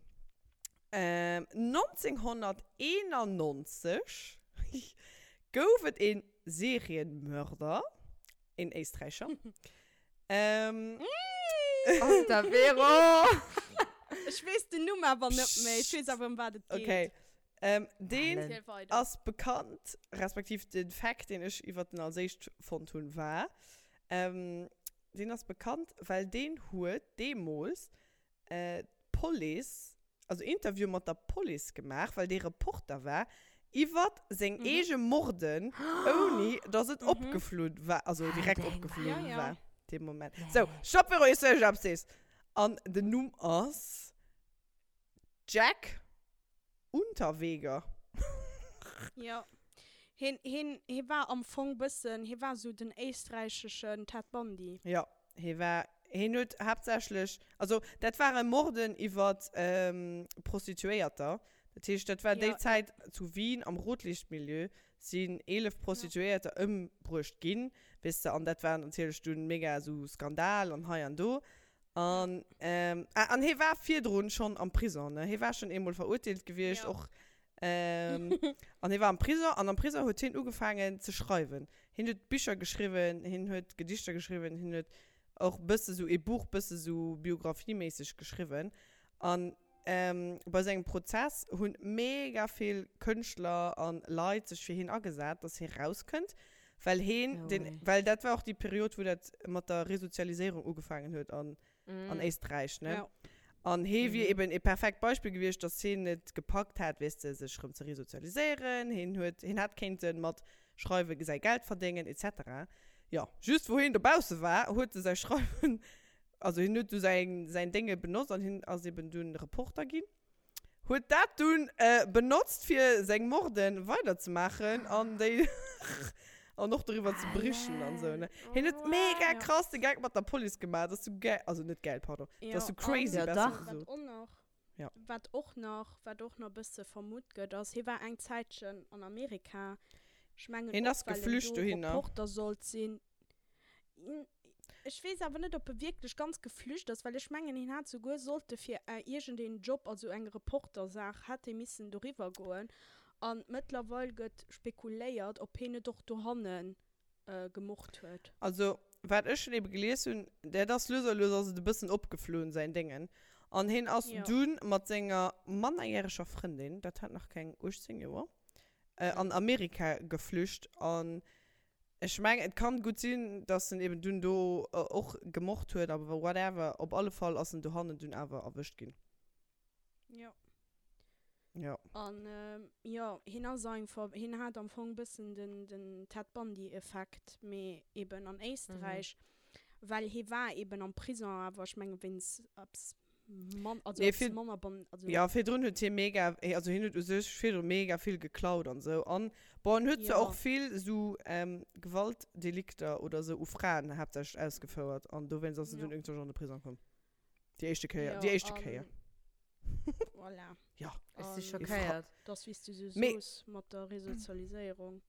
1991 gouf et ee Serienmörder, een Éisträicher. Ähm. Oh, der Vero! Ech weess den Numm awer net méi. Ech weess awer, ëm wat et geet. Okay. Ähm, deen ass bekannt, respektiv de Fact, deen ech iwwert en als éischt fonnt hunn, war, ähm, deen ass bekannt, well deen huet deemools d'Police, also Interview mat der Police gemaach, well dee Reporter war, iwwert seng eege Morden, ouni dass et opgeflunn war, also direkt opgeflunn war dee Moment. Sou, Stopp Vero, iers du iergendeppes sees. An den Numm ass Jack Unterweger. Jo. Hien, hien, hie war am Fong bëssen, hie war sou den éisträicheschen Ted Bundy. Jo, hie war, hien huet haaptsächlech, also dat ware Morden iwwer Prostituéierter. Dat heescht, dat war déi Zäit zu Wien am Rotlichtmilieu sinn 11 Prostituéierter ëmbruecht ginn, weess de, an dat war natierlech dunn mega esou Skandal an hei an do. An, ähm, ah, an hie war virdrun schonn am Prison, ne? Hie war schonn eemol verurteelt gewiescht, Ja. och. Ähm, an hie war am Prison, an am Prison huet hien ugefaangen ze schreiwen. Hien huet Bicher geschriwwen, hien huet Gedichter geschriwwen, hien huet och bësse sou ee Buch, bësse sou biografieméisseg geschriwwen. An ähm, bei sengem Prozess hunn mega vill Kënschtler an Leit sech fir hien agesat, dass hie rauskënnt. Well heen, No den, way. well dat war och déi Period, wou dat mat der Resozialiséierung ugefaangen huet an, an Éisträich, ne? Ja. An hee wier Mhm. eben e perfekt Beispill gewiescht, dass heen et gepackt hätt, weess de, sech rëm ze resozialiséieren. Heen huet, heen hätt kéinte mat Schreiwe säi Geld verdéngen, et cetera. Jo, just wou heen dobausse war, huet e säi Schreiwen, also hien huet du säin, säin Dénge benotzt an hien ass eben dunn Reporter ginn. Huet dat dunn benotzt fir seng Morden weider ze maachen an déi an och doriwwer ze berichten an sou ne. Hien huet mega krass de Geck mat der Police gemaach, dat ass sou gäil, also net gäil, pardon, dat ass sou crazy Ja, besser dach. gesot. Wat och nach, Ja. wat och nach, wat och nach bësse vermutt gëtt ass, hie war eng Zäitchen an Amerika, ech mengen Hien och ass well en geflücht do dohinner. Reporter sollt sinn. Ech weess awer net, ob e wierklech ganz geflücht ass, well ech mengen, hien hat souguer sollte fir iergendeen Job, also eng Reportersaach, hätt hie missen doriwwer goen. A mëttlerweil gëtt spekuléiert, ob hien net och dohanne gemort huet. Also, wat ech schon ebe gelies hunn, dat ass lues a lues ass et e bëssen opgeflunn, säin Déngen. An hien ass dunn mat senger mannerjäreger Frëndin, dat hat nach keng 18 Joer, an Amerika geflücht. An Ech mengen, et kann gutt sinn, dass en eben dunn do och gemort huet, awer whatever, op alle Fall ass en dohannen dunn awer erwëscht ginn. Jo. Jo. An jo, hien ass einfach, hien hat am Fong bëssen den, den Ted Bundy Effekt, mee eben an Éisträich, well hie war eben am Prison, awer ech menge wéinst eppes Man, also Nee, eppes vir, manner ban, also. ja, virdrun huet hie mega, also hien huet u sech virdru mega vill geklaut an sou. An, bon, en huet zwar Ja. och vill sou ähm, Gewaltdelikter oder sou u Fraen haaptsächlech ausgefouert an dowéinst ass en Ja. dunn iergendwann an de Prisong komm. Déi éischte Kéier, Ja, déi éischte Kéier. an voilà. Ja. Ech si An schockéiert. dass, wéi s du sou Mee. soos, mat der Resozialiséierung.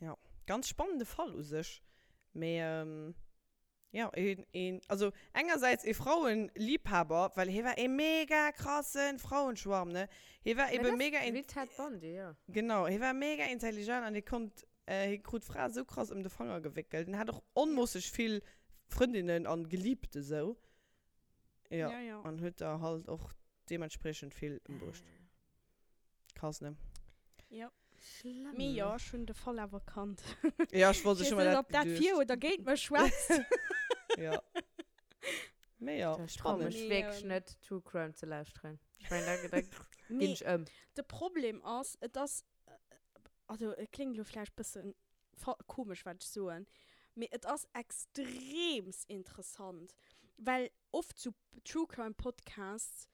Ja, ganz spannende Fall u sech. Mee, ähm. Jo, een, een, also engersäits ee Frauenliebhaber, well hie war ee mega krassen Frauenschwarm, ne? Hie war Mä ebe dat ass mega in, wéi Ted Bundy, jo. genau, hie war mega intelligent an hie konnt, hie krut d'Frae sou krass ëm de Fanger gewéckelt. En hat och onmoosseg vill Frëndinnen an Geliebte sou, jo, Ja, ja. an huet der halt och deementspriechend vill ëmbruecht. Krass, ne? Jo. Schlëmm. Mee jo, ech hunn de Fall awer kannt. Ja, ech wollt, Ech ech weess hu mer net, dat ob dat geduecht. fir oder géint mech schwätzt. Ja. Mee jo, Ech trau spannend. mech Mee, wierklech ähm, net, True Crime ze lauschteren. Ech mengen, da, da ginn Mee ech ëm. de Problem ass, et ass, also et kléngt elo vläicht bëssen fa komesch wat ech soen, mee et ass extreems interessant, well oft sou True Crime Podcasts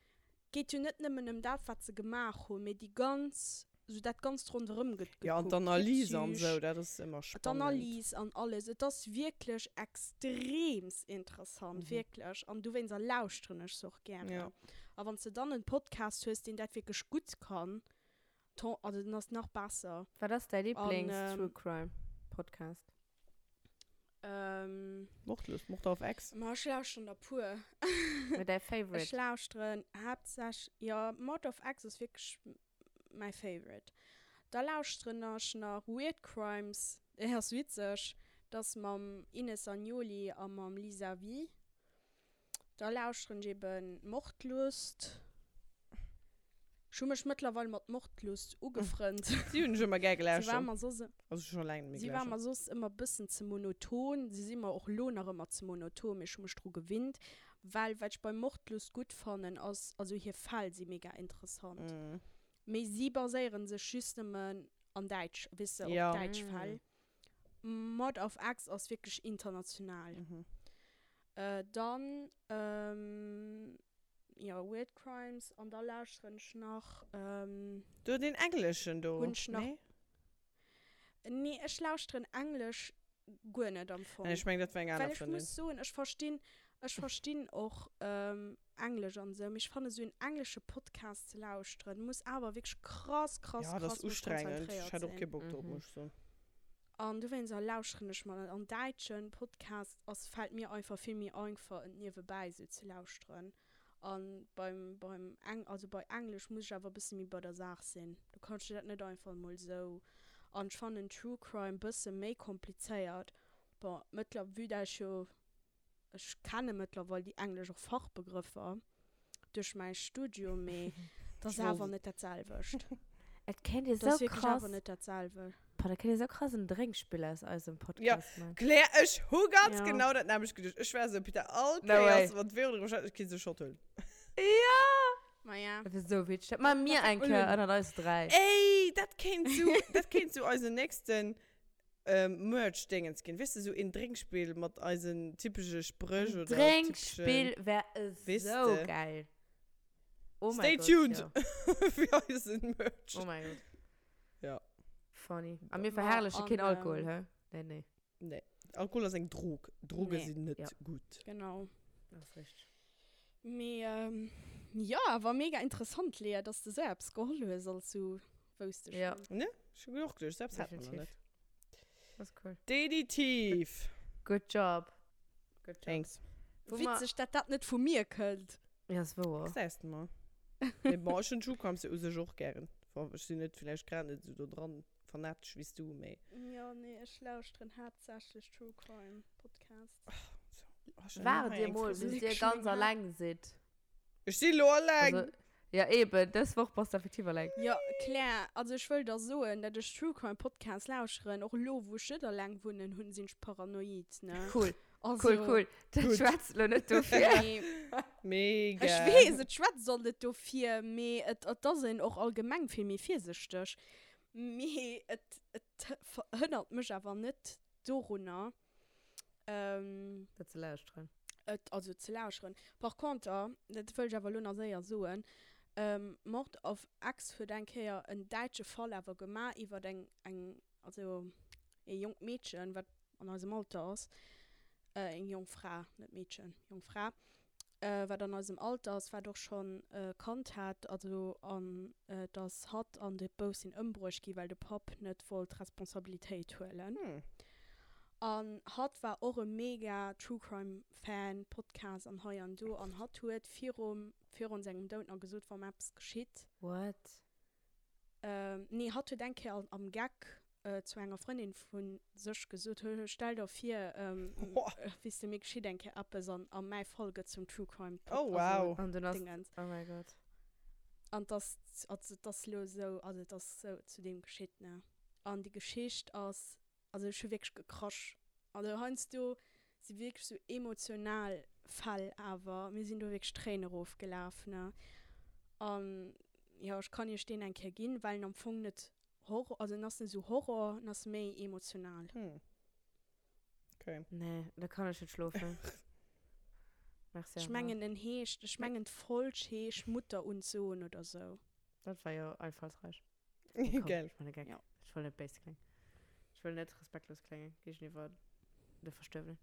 geet jo net nëmmen ëm dat wat se gemaach hunn, mee déi ganz, sou dat ganzt ronderëm gëtt Ja, an gekuckt, d'Analyse an d'Psych, esou, dat ass ëmmer spannend. d'Analyse an alles. Et ass wierklech extreems interessant, wierklech. An dowéinster lauschteren ech se och gären. Ja. A wann s de dann en Podcast hues, deen dat wierklech gutt kann, ton, also dann ass nach besser. Wat ass däi An, Lieblings-True Crime Podcast? Ähm. Mordlust, Mord auf Ex. Ma ech lauschteren der puer. Mee däi Ech Favorite? lauschteren haaptsächlech, jo, Mord of Ex ass wierklech mäi Favorite. Da lauschteren ech nach Weird Crimes, deen ass witzeg, dat ass mam Ines Agnoli a mam Lisa Vie. Da lauschteren ech eben Mordlust. Ech hu mech mëttlerweil mat Mordlust ugefrënnt. Si hunn ech ëmmer gär Si war gelauschtert. mer soss, Also scho laang net méi si war mer gelauschtert. soss ëmmer bëssen ze monoton. Si si mer och lo nach ëmmer ze monoton, mee ech hu mech dru gewinnt. Well wat ech bei Mordlust gutt fannen ass, also hir Fäll si mega interessant. Mee si baséieren sech just nëmmen an däitsch, weess de, op Ja. däitsch Fäll. Mord auf Ex ass wierklech international. Dann, jo, Weird Crimes an da lauschteren ech nach. Do deen engleschen do, Hunn ech nach. nee? Nee, ech lauschteren englesch guer net am Fong. Nee, ech mengen dat war eng aner Well ech Frëndin. muss soen, ech verstinn, ech verstinn och englesch an esou, mee ech fannen esou en englesche Podcast ze lauschteren muss awer wierklech krass, krass, Ja, dat krass ass mech ustrengend. Ech konzentréiert hätt och sinn. kee Bock drop, muss ech soen. An dowéinster lauschteren ech mer net. An däitschen Podcast ass, fällt mir einfach vill méi einfach en niewebäi esou ze lauschteren. An beim, beim Eng, also bei Englesch muss ech awer e bësse méi bei der Saach sinn. Do kanns du dat net einfach emol esou. An ech fannen True Crime bësse méi komplizéiert. Bon, mëttler, vue dat ech jo Ech kenne mëttlerweil déi englesch och Fachbegrëffer duerch mäi Studium, mee et ass awer net dat selwecht. Et kéint ee Et ass sou wierklech krass, awer net dat selwecht. boah, da kéint ee sou krass en Drénkspill aus eisem Ja, Podcast man. Claire, ech hu ganz Ja. genau dat nämlecht geduecht. Ech war sou, Peter, all No way. Kéiers, wann d'Vero driwwer schwätzt, ech kéint se Shot huelen. Ja! Ma ja. Dat wär sou witzeg. Dat maache mir eng Kéier ënnert eis 3. Ey, dat kéint sou, dat kéint sou eisen nächsten Merch-Dingens ginn. Weess de, sou een Drénkspill mat eisen typesche Spréch oder typeschen. Drénkspill wär Weess esou de. geil. Oh Stay mäi Gott, tuned jo. fir eisen Merch. Oh mäi Gott. Ja. Funny. A mir Ma verherrleche an, keen Alkohol, ähm, hä? Nee, nee. Nee. Alkohol ass eng Drog. Droge Nee. sinn net Ja. gutt. Genau. Dat ass richteg. Mee jo, awer mega interessant, Lea, dass de sou eppes geholl hues, als sou wousst ech Ja. net. Ne? Ech hu och geduecht, sou eppes hat man nach Definitiv. net. Dat ass cool. Definitiv. Good job. Good job. Thanks. Wou mer- Witzeg, dat dat net vu mir kënnt. Ja, ass wouer. Gesäis de mol. Mee bon, ech hunn True Crimes jo u sech och gären. Bon, ech sinn net villäicht grad net sou do dran fanatesch wéi s du, mee. Jo, nee, ech lauschteren haaptsächlech True Crime Podcasts. Waart dir mol, bis dir ganz alleng sidd. Ech si lo alleng! Also, ja eben, dës Woch bass de effektiv alleng. Jo, Claire, also ech wëll der soen, dat ech True Crime Podcasts lauscheren, och elo wou ech net alleng wunnen, hunn, sinn ech paranoid, ne? Cool, Also, cool, cool. Dat Gutt. schwätzt lo net dofir. Nee, Mega! ech weess, et schwätzt och net dofir, mee et, et ass een och allgemeng vill méi virsichteg. Mee et, et hënnert mech awer net dorunner, Ähm, Dat ze lauschteren. Et, also ze lauscheren. Par conter, dat wëll ech awer elo nach séier soen, ähm, Mord auf Ex huet eng Kéier en däitsche Fall awer gemaach iwwert eng, eng, also ee jonkt Meedchen, wat an eisem Alter ass, äh, eng jonk Fra, net Meedchen, jonk Fra, wat an eisem Alter ass, wat och schonn e Kand hat, also an dass hatt an de Bouf sinn ëmbruecht gi well de Papp net wollt Responsabilitéit huelen. An hatt war och e mega True Crime Fan, Podcast an hei an do, an hatt huet virum virun sengem Doud nach gesot, wa mer eppes geschitt, What? Nee, hatt huet eng Kéier am Geck zu enger Frëndin vu sech gesot, Hö, stell der vir, weess de, mir geschitt eng Kéier eppes an a mäi Fall gëtt zum True Crime Pod, Oh wow. An dunn ass, Dingens. oh mäi Gott. An 't ass, also 't ass elo esou, also et ass esou zu deem geschitt, ne. An déi Geschicht ass, also ech hu wierklech gekrasch. Also heiansdo si wierklech sou emotional. Fäll awer. Mir sinn do wierklech d'Tréinen erofgelaf, ne. An jo, ech kann iech deen eng Kéier ginn, well en am Fong net Horror, also en ass net esou Horror, en ass méi emotional. Hm. Okay. Nee, da kann ech net schlofen. Merci Ech awer. mengen en heescht, ech mengen d'Folg heescht Mutter und Sohn oder sou. Dat war jo einfallsreich. Nee, komm, Gell. ech man e Geck. Ja. Ech wëll net béis kléngen. Ech wëll net respektlos kléngen géigeniwwer de Verstuerwenen.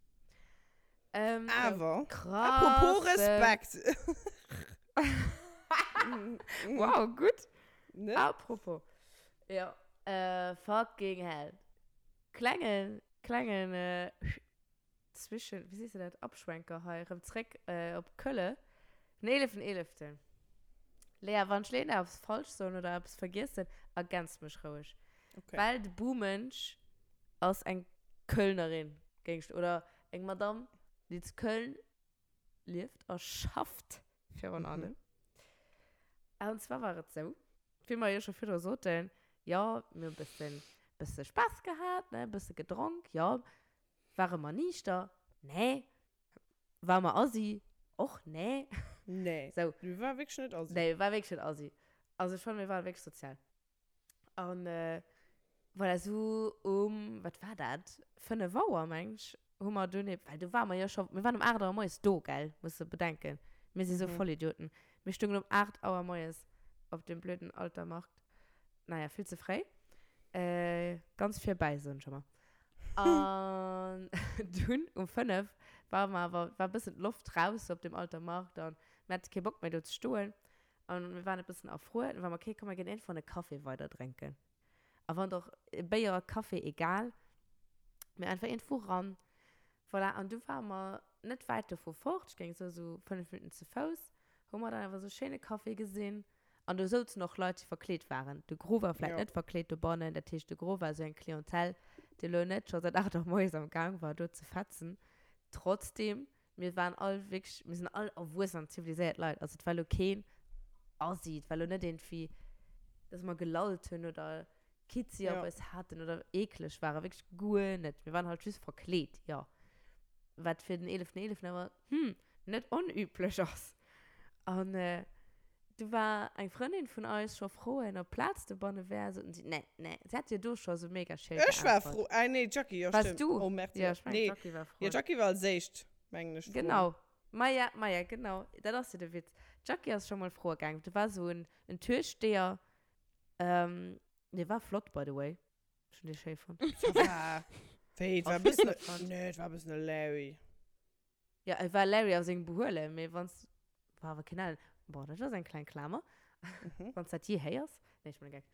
Ähm, Awer, krass. apropos Respekt. Wow, gutt. Ne? Apropos. Ja. Äh, fucking hell. Klengen, klengen, äh, Zwischen, wéi sees de dat, Abschwenker hei, erëm zréck op Kölle. Den eeleften eeleften. Lea, wann ech elo eppes falsch soen oder eppes vergiessen, ergänz mech roueg. Okay. Well de Bumensch ass eng Kölnerin, géing ech, oder eng Madame, déi zu Köln lieft a schafft virun allem. An zwar war et sou, wéi mer jo scho virdru soten, jo, mir hu bëssen, bësse Spaass gehat, ne, bësse gedronk, jo, Ware mer niichter? Nee. Ware mer assi? Och nee. Nee. Sou. Mir ware wierklech net assi. Nee, mir ware wierklech net assi. Also ech fannen, mir ware wierklech sozial. An voilà, sou um, wat war dat, 5 Auer, meng ech, hu mer dunn ebe, well do ware mer jo scho, mir waren um 8 Auer moies do, gell, muss de bedenken. Mir si sou Vollidioten. Mir stungen um 8 Auer moies op deem blöden Altermarkt. Naja, vill ze fréi. Ganz virbäi, soen ech ëmmer. An dunn um 5 ware mer awer, war e bëssen d'Loft raus sou op deem Alter Markt an mir hate kee Bock méi do ze stoen an mir waren e bëssen erfruer. Dann ware mer, okay, komm mer ginn iergendwann e Café weider drénken. A wann och Béier, Café, egal, mee einfach iergendwou ran. Voilà, an du ware mer net wäit dovu fort, ech géing soe sou 5 Minutten ze Fouss, hu mer dann awer sou e schéine Café gesinn. An do souzen och Leit, déi verkleet waren. De Gros war vläicht Ja. net verkleet dobannen. Dat heescht, de Gros war esou eng Clientèle, déi elo net scho säit 8 Auer moies am Gaang war, do ze fetzen. Trotzdem, mir waren all wierklech, mir sinn all erwuessen an ziviliséiert Leit. Also et war elo keen Assi, et war elo net iergendwéi, dass mer gelallt hunn oder Kizzi op Ja. eis haten oder eekleg waren. Wierklech guer net. Mir waren halt just verkleet, jo. Wat fir den 11.11. awer, hm, net onüblech ass. An du war eng Frëndin vun eis scho froen, ob Plaz dobanne wär. Soten si, nee, nee. Si hat jo do scho sou mega schéi Ech war geäntwert. fro, ah nee, d'Jackie, jo Wars stimmt. du? Oh merde, Ja, ech mengen, nee. d'Jackie war Jo, froen. d'Jackie war als éischt, mengen ech, froen. Genau. Maja, maja, genau. Dat ass jo de Witz. D'Jackie ass scho mol froe gaangen. Do war sou en, en Türsteher, ähm, dee war flott, by the way. Ech hunn dee schéi fonnt. Ça va. Wéi, et war e Ass net bëssen, fonnt. nee, et war e bëssen e Larry. Ja, et war Larry a sengem Behuelen, mee wanns, war awer keen Ellen. Bon, dat ass eng kleng Klamer, wanns dat jee héiers. Nee, ech man e Geck.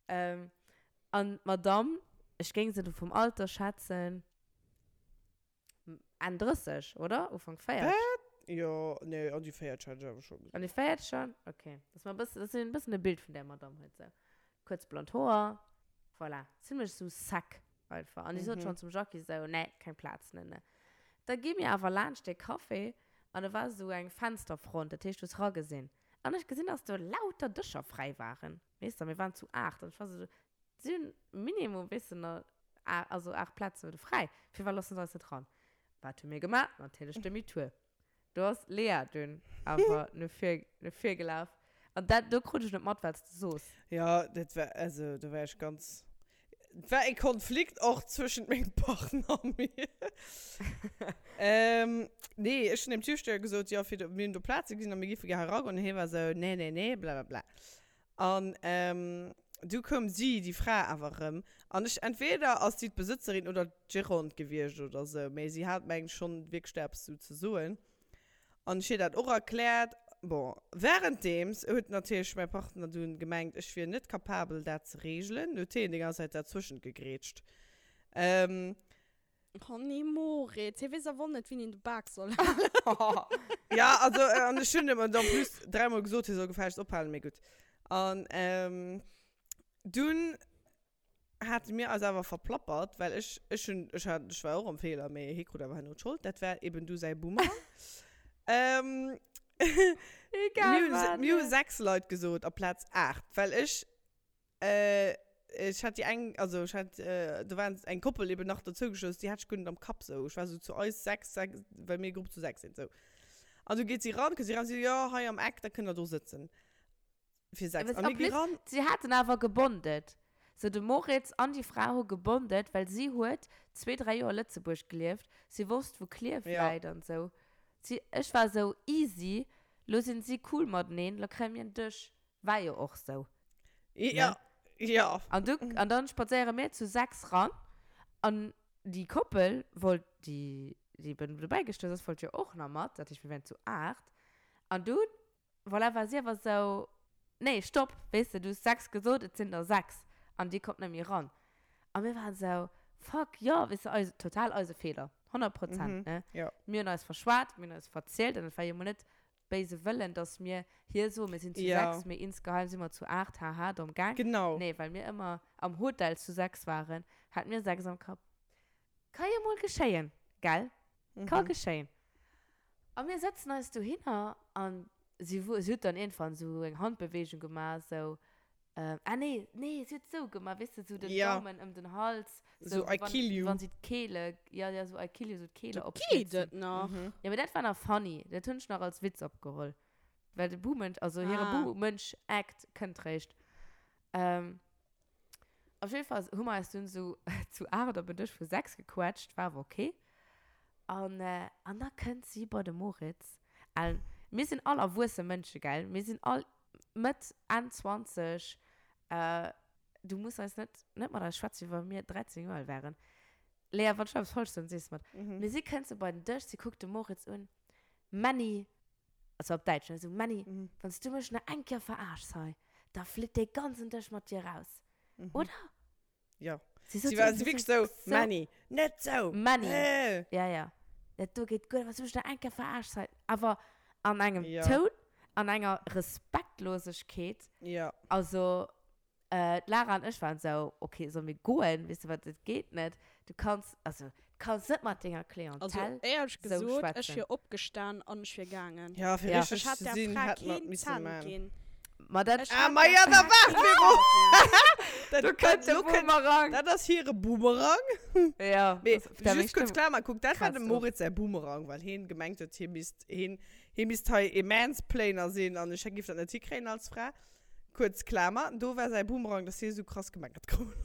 Ähm, an d'Madame, ech géing se do vum Alter schätzen, Enn 30, oder? Ufank 40? Wat? Jo, nee, an déi 40 hat ech awer scho gesot. An déi 40 schon? Okay. Dass mer e bëssen, dass een e bëssen e Bild vun där Madame huet, sou. Kuerz blond Hoer, voilà. Zimlech sou sec einfach. An déi sot schonn zum Jackie sou, nee, keng Plaz, ne, ne. Da gi mir awer laanscht dee Café an do war esou eng Fensterfront, dat heescht, du hues ragesinn. An ech gesinn, dass do lauter Dëscher fräi waren. Weess de, mir waren zu 8 an ech war esou, si hunn minimum, weess de, nach also 8 Plazen do fräi, firwat loossen se eis net ran? Wat hu mir gemaach? Natierlech Demi-tour. Do ass d'Lea dunn awer no vir, no vir gelaf. An dat, do krut ech net mat, wat s de soos. Jo, dat war, also do war ech ganz, et war e Konflikt och zwëschent mengem Partner a mir. Ähm, nee, ech hunn dem Türsteher gesot, jo, fir do, mir hunn do Plaze gesinn a mir géife gär hei eragoen. An hie war esou, nee, nee, nee, blablabla. An du koum si, déi Fra, awer erëm. An ech, entweder ass si d'Besëtzerin oder d'Gérante gewiescht oder sou, mee si hat, mengen ech, schonn wierklech do eppes sou ze soen. An ech hir dat och erkläert. Bon, währenddeems huet natierlech mäi Partner dunn gemengt, ech wier net kapabel, dat ze reegelen. Huet hien déi ganz Zäit derzwëschent gegrätscht. Oh nee, Moritz, hie weess awer och net, wien een de Bak soll halen. Ja, also, an ech hunn em en plus dräimol gesot, hie soll gefällegst ophalen, mee gutt. An dunn hate mir eis awer verplappert, well ech, ech hunn, ech hat, ech war och am Feeler, mee hie krut awer herno d'Schold, dat war eben du säi Boomerang. Egal Mir hunn, wat, mir hu ne? 6 Leit gesot aplaz 8, well ech Ech hat déi eng, also ech hat, do war eng Koppel eben nach dozou gestouss, déi hat ech guer net am Kapp sou. Ech war sou zu eis 6, 6, well mir e Grupp zu 6 sinn, sou. An du geet si ran, kënnt si ran, si so, jo, hei am Eck, da kënnt der do sëtzen. Fir 6. Ja, An mir gi ran. Si haten awer gebondet. Sou de Moritz an déi Fra hu gebondet, well si huet zwee, dräi Joer Lëtzebuerg gelieft. Si wosst, wou Klierf Ja. läit an sou. Si, ech war sou, easy, lo sinn si cool mateneen, lo kréie mir en Dësch. War jo och sou. Ja, ja. An du, an dann spadséiere mir zu 6 ran an déi Koppel wollt, déi, déi eben dobäi gestouss ass, wollt jo och nach mat, dat heescht mir wären zu 8. An dunn, voilà, war si awer sou, nee, stopp, weess de, du hues 6 gesot, et sinn der 6 an dir kommt net méi ran. A mir waren sou, fuck, jo, weess de, eise, total eise Feeler, 100 Prozent, ne. Jo. Mir hunn eis verschwat, mir hunn eis verzielt an et war jo mol net béise Wëllen, dass mir hir soen, mir sinn zu Ja. 6, mee insgeheim si mer zu 8, haha, domm Gang. Genau. Nee, well mir ëmmer am Hotel zu 6 waren, hate mir 6 am Kapp. Ka jo mol geschéien, gell? Ka geschéien. A mir sëtzen eis dohinner an si, si huet dann iergendwann esou eng Handbeweegung gemaach, esou, Ähm, ah nee, nee, sie huet sou gemaach, weess de, sou den Ja. Daumen ëm den Hals. So, wéi I wann, kill wéi you. wann sie d'Kehle, ja, ja, so I kill you, so d'Kehle Do geet opschlitzen. et nach. Mhm. Ja, mee dat war nach funny. Dat hunn ech nach als Witz opgeholl. Well de Buhmensch, also hire Ah. Buhmensch-Act kënnt réischt. Ähm, op jeden Fall hu mer eis dunn sou zu 8 op en Dësch vu 6 gequetscht, war awer okay. An, äh, an da kënnt si bei de Moritz. An mir sinn all erwuesse Mënsche, gell? Mir sinn all Mëtt, Enn 20, du muss eis net, net mat eis schwätzen, wéi wa mir 13 Joer al wären. Lea, wann ech eppes falsch soen, sees de mer. Mee si kënnt sou bei den Dësch, si kuckt de Moritz un, Männi, also op Däitsch, ne, sou, Männi, wann s du mech nach eng Kéier veraarschs hei, da flitt dee ganzen Dësch mat dir raus, oder? Ja. Sie sot Sie war irgendwie wirklich so, so Manny, net so. Manny. Äh. Ja, ja. Dat do geht guer, was du da enke verarscht sei. Aber an engem Ja. Toun, an enger Respektlosigkeet. Ja. Also, äh, d'Lara an ech waren so, okay, soll mir goen? Weißt du wat, dat geht net. Du kannst, also, du kannst net mat denger Klientel Also, éierlech so gesot, ech schwätzen. wier opgestan an ech wier gaangen. Ja, fir Ja. richtig Ech hätt ze der sinn, Fra hätt man keen missen Cent man. ginn. Ma dat, Ech Ah, hätt ma der ja, da Fra waart keen Vero! Cent ginn. Dat, do dat, kënnt de lo kënnt, Boomerang. dat ass hire Boomerang. Ja, Mee, das, der just kurz Stëmm klar mal, guck, dat war kratzt dem of. Moritz säi Boomerang, well hien gemengt huet, hie misst, hien, hie misst hei e Mansplainer sinn an ech giff dat net hikréien als Fra. Kuerz Klamer, do war säi Boomerang, dass hie sou krass gemeckert krut.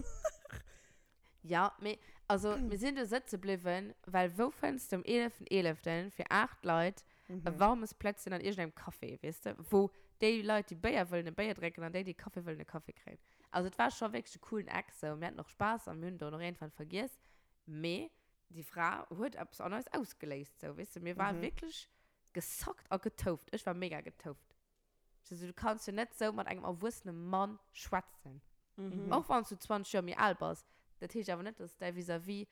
Ja, mee, also, mir sinn do sëtze bliwwen, well wou fënns de um 11.11. fir 8 Leit e warmes Plätzchen an iergendengem Café, weess de, wou déi Leit, déi Béier wëllen, e Béier drénken an déi, déi Kaffi wëllen, e Kaffi kréien. Also, et war scho wierklech e coolen Eck sou. Mir haten och Spaass a mir hunn do och iergendwann vergiess, mee déi Fra huet eppes an eis ausgeléist sou, weess de. Mir ware wierklech gesackt a getouft. Ech war mega getouft. Also, du kanns jo net sou mat engem erwuessene Mann schwätzen. Mhm. Och wann s du 20 Joer méi al bass. Dat heescht awer net, dass däi Vis-à-vis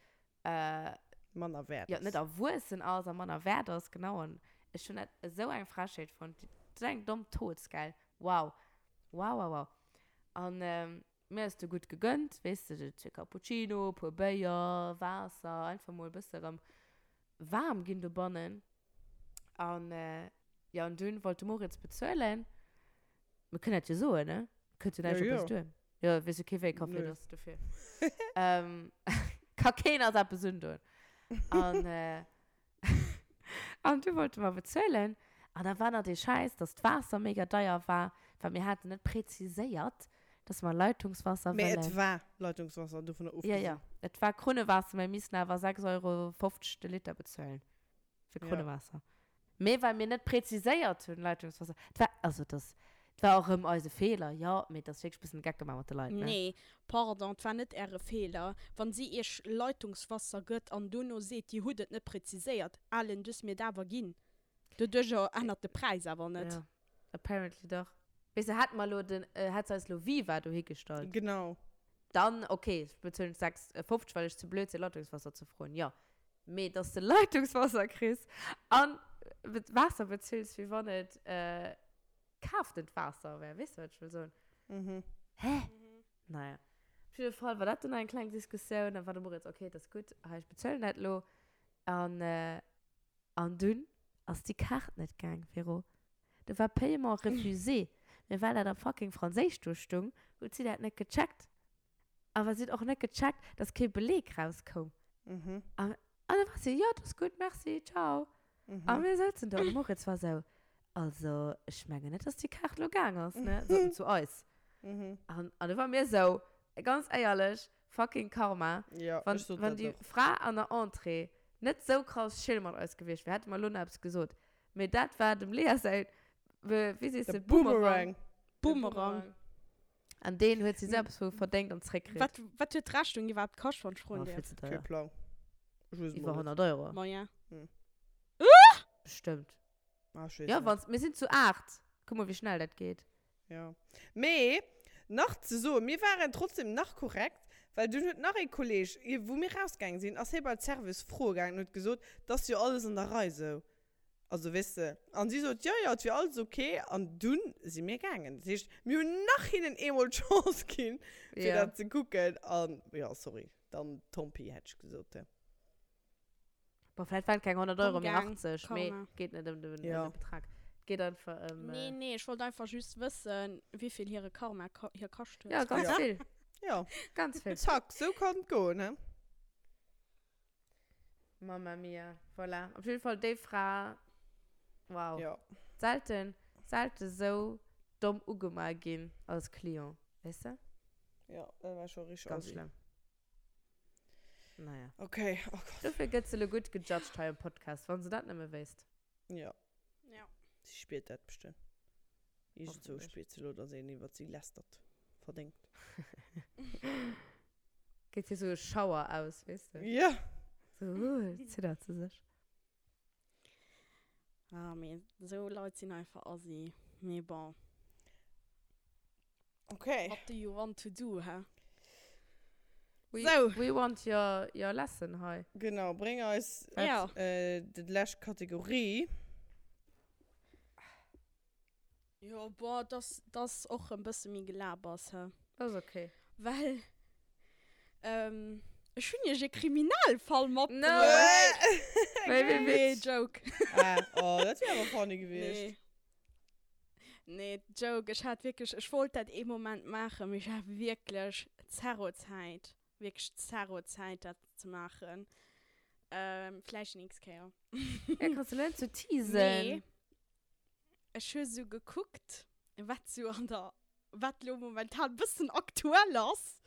äh, Manner wäert ja, ass. net erwuessen ass a manner wäert ass. Genau. An ech hunn dat esou eng Frechheet fonnt. Dat ass eng domm Toz, gell? Wow. Wow, wow, wow. An ähm, mir ass du gutt gegönnt, weess de, zwee Cappuccino, puer Béier, Waasser, einfach mol e bësse rëm waarm ginn dobannen. An äh, jo, an dunn wollt de Moritz bezuelen. Mir kënnen dat jo soen, ne? Kënnt jo näischt Ja, op jo. eis duer. Jo, weess jo kee wéi Café Nö. et ass, dofir. ähm, ka keen eis eppes undoen. An, äh, an du wollte mer bezuelen. An da war nach dee Schäiss, dass d'Waasser mega deier war, well mir haten net präziséiert, dass mer Leitungswasser Mee wëllen. et war Leitungswasser, dovunner Ja, ofgesinn. ja. Et war Krunnewaasser, mä mir missten awer 6,50 Euro de Liter bezuelen. Fir Ja. Krunnewaasser. Mee well mir net präziséiert hunn, Leitungswasser. Et war, also das, et war och erëm eise Feeler, jo, mee et ass wierklech e bëssen de Geck gemaach mat de Leit, ne? Nee, pardon, et war net äre Feeler. Wann si iech Leitungswasser gëtt an dono seet, dir hutt et net präziséiert, Alen, du hues mir et awer ginn. Doduercher ännert de Präis awer net. Ja, apparently dach. Weess de, hätt mer elo den, hätt se eis elo Viva dohi gestallt. Genau. Dann, okay, bezuelen ech 6,50, well ech ze blöd sinn, Leitungswasser ze froen, jo. Mee dass de Leitungswasser kriss an Waasser bezills, wéi wann et kaaftent Waasser wär, weess de, wat ech wëll soen? Mhm. Hä? Naja. Op jidde Fall war dat dunn eng kleng Diskussioun. Dann war de Moritz, okay, et ass gutt, hei, ech bezuelen dat elo. An, an dunn ass déi Kaart net gaang, Véro. Do war Paiement refusé. Mee well dat am fucking Franséisch do stung, huet si dat net gecheckt. Awer si huet och net gecheckt, dass kee Beleg rauskoum. Mhm. An, an da war si, jo, dat ass gutt, merci, ciao. A mir souzen do an de Moritz war esou, Also, ech mengen net, dass déi Kaart lo gaang ass, ne? Sot en zu eis. An, an du war mir esou, ganz éierlech, fucking Karma. Ja, Wann, ech sot wann dat déi och. Fra an der Entrée net sou krass chill mat eis gewiescht wär, hätte mer lo nach eppes gesot. Mee dat war dem Lea säi, wéi sees De de, Boomerang. Boomerang. Boomerang. An deen huet si selbst vu verdéngt an zréckkritt. Wat, wat huet d'Rechnung iwwerhaapt kascht, wann ech froen Oh, vill däerf? ze Kee teuer. Plang. Ech weess et Iwwer mol net. 100 Euro. Moyen. Hm. Bestëmmt. Ah, ech weess Ja, net. wann, mir sinn zu 8. Kuck mol, wéi schnell dat geet. Ja. Mee, nach ze soen, mir waren trotzdem nach korrekt, well dunn huet nach ee Kolleg, ier wou mir rausgaange sinn, ass hie bei d'Service froe gaangen an huet gesot, 't ass jo alles an der Rei sou. Also weess de, an si sot, jo, jo, et wier alles ok. An dunn si mir gaangen. Dat heescht, mir hunn nach hinnen eemol d'Chance ginn, fir Ja. dat ze kucken. An, jo, sorry, dann tant pis, hätt ech gesot. Bon, vläicht waren et keng 100 Euro, mee Komm, gang, 80. Mee Karma. et geet net ëm den, Ja. ëm de Betrag. Et geet einfach ëm. Nee, nee, ech wollt einfach just wëssen, wéivill hire Karma ko hir kascht huet. Ja, ganz Ja. vill. Ja, Ganz vill. zack, sou kann et goen, he? Mamma mia, voilà. Op jeden Fall déi Fra, wow. Ja. Selten, selten sou domm ugema ginn als Client, weess de? Ja, dat war scho richteg Ganz assi. schlëmm. Naja. Okay, oh Gott. Dofir gëtt se lo gutt gejudged hei am Podcast, wann se dat nëmme wéisst. Ja. Ja. Si spiert dat bestëmmt. Iergendzwou Hoffentlech. spiert se lo, dass een iwwert si lästert. Verdéngt. Geet hir sou e Schauer aus, weess de? Ja. Sou, uh, ziddert se sech. Ah, mee sou Leit sinn einfach assi. Mee bon. Okay. What do you want to do, hä? We, Sou. we want your, your lesson hei. Genau, bréng eis Ja. äh, déi lescht Kategorie. Jo, boah, dass dass och e bësse méi Gelabers, hä? Dat ass okay. Well, ähm, ech hunn iech e Kriminalfall No matbruecht. Wéi, wéi Nee, witzeg. Joke. Ah, oh, dat wär awer funny gewiescht. Nee. Nee, Joke, ech hat wierklech, ech wollt dat ee Moment maachen, mee ech hat wierklech zero Zäit, wierklech zero Zäit dat ze maachen. Ähm, vläicht déi nächst Kéier. Ja, kanns du lo net sou teasen. Mee ech hu sou gekuckt, wat sou an der, wat lo momentan bëssen aktuell ass.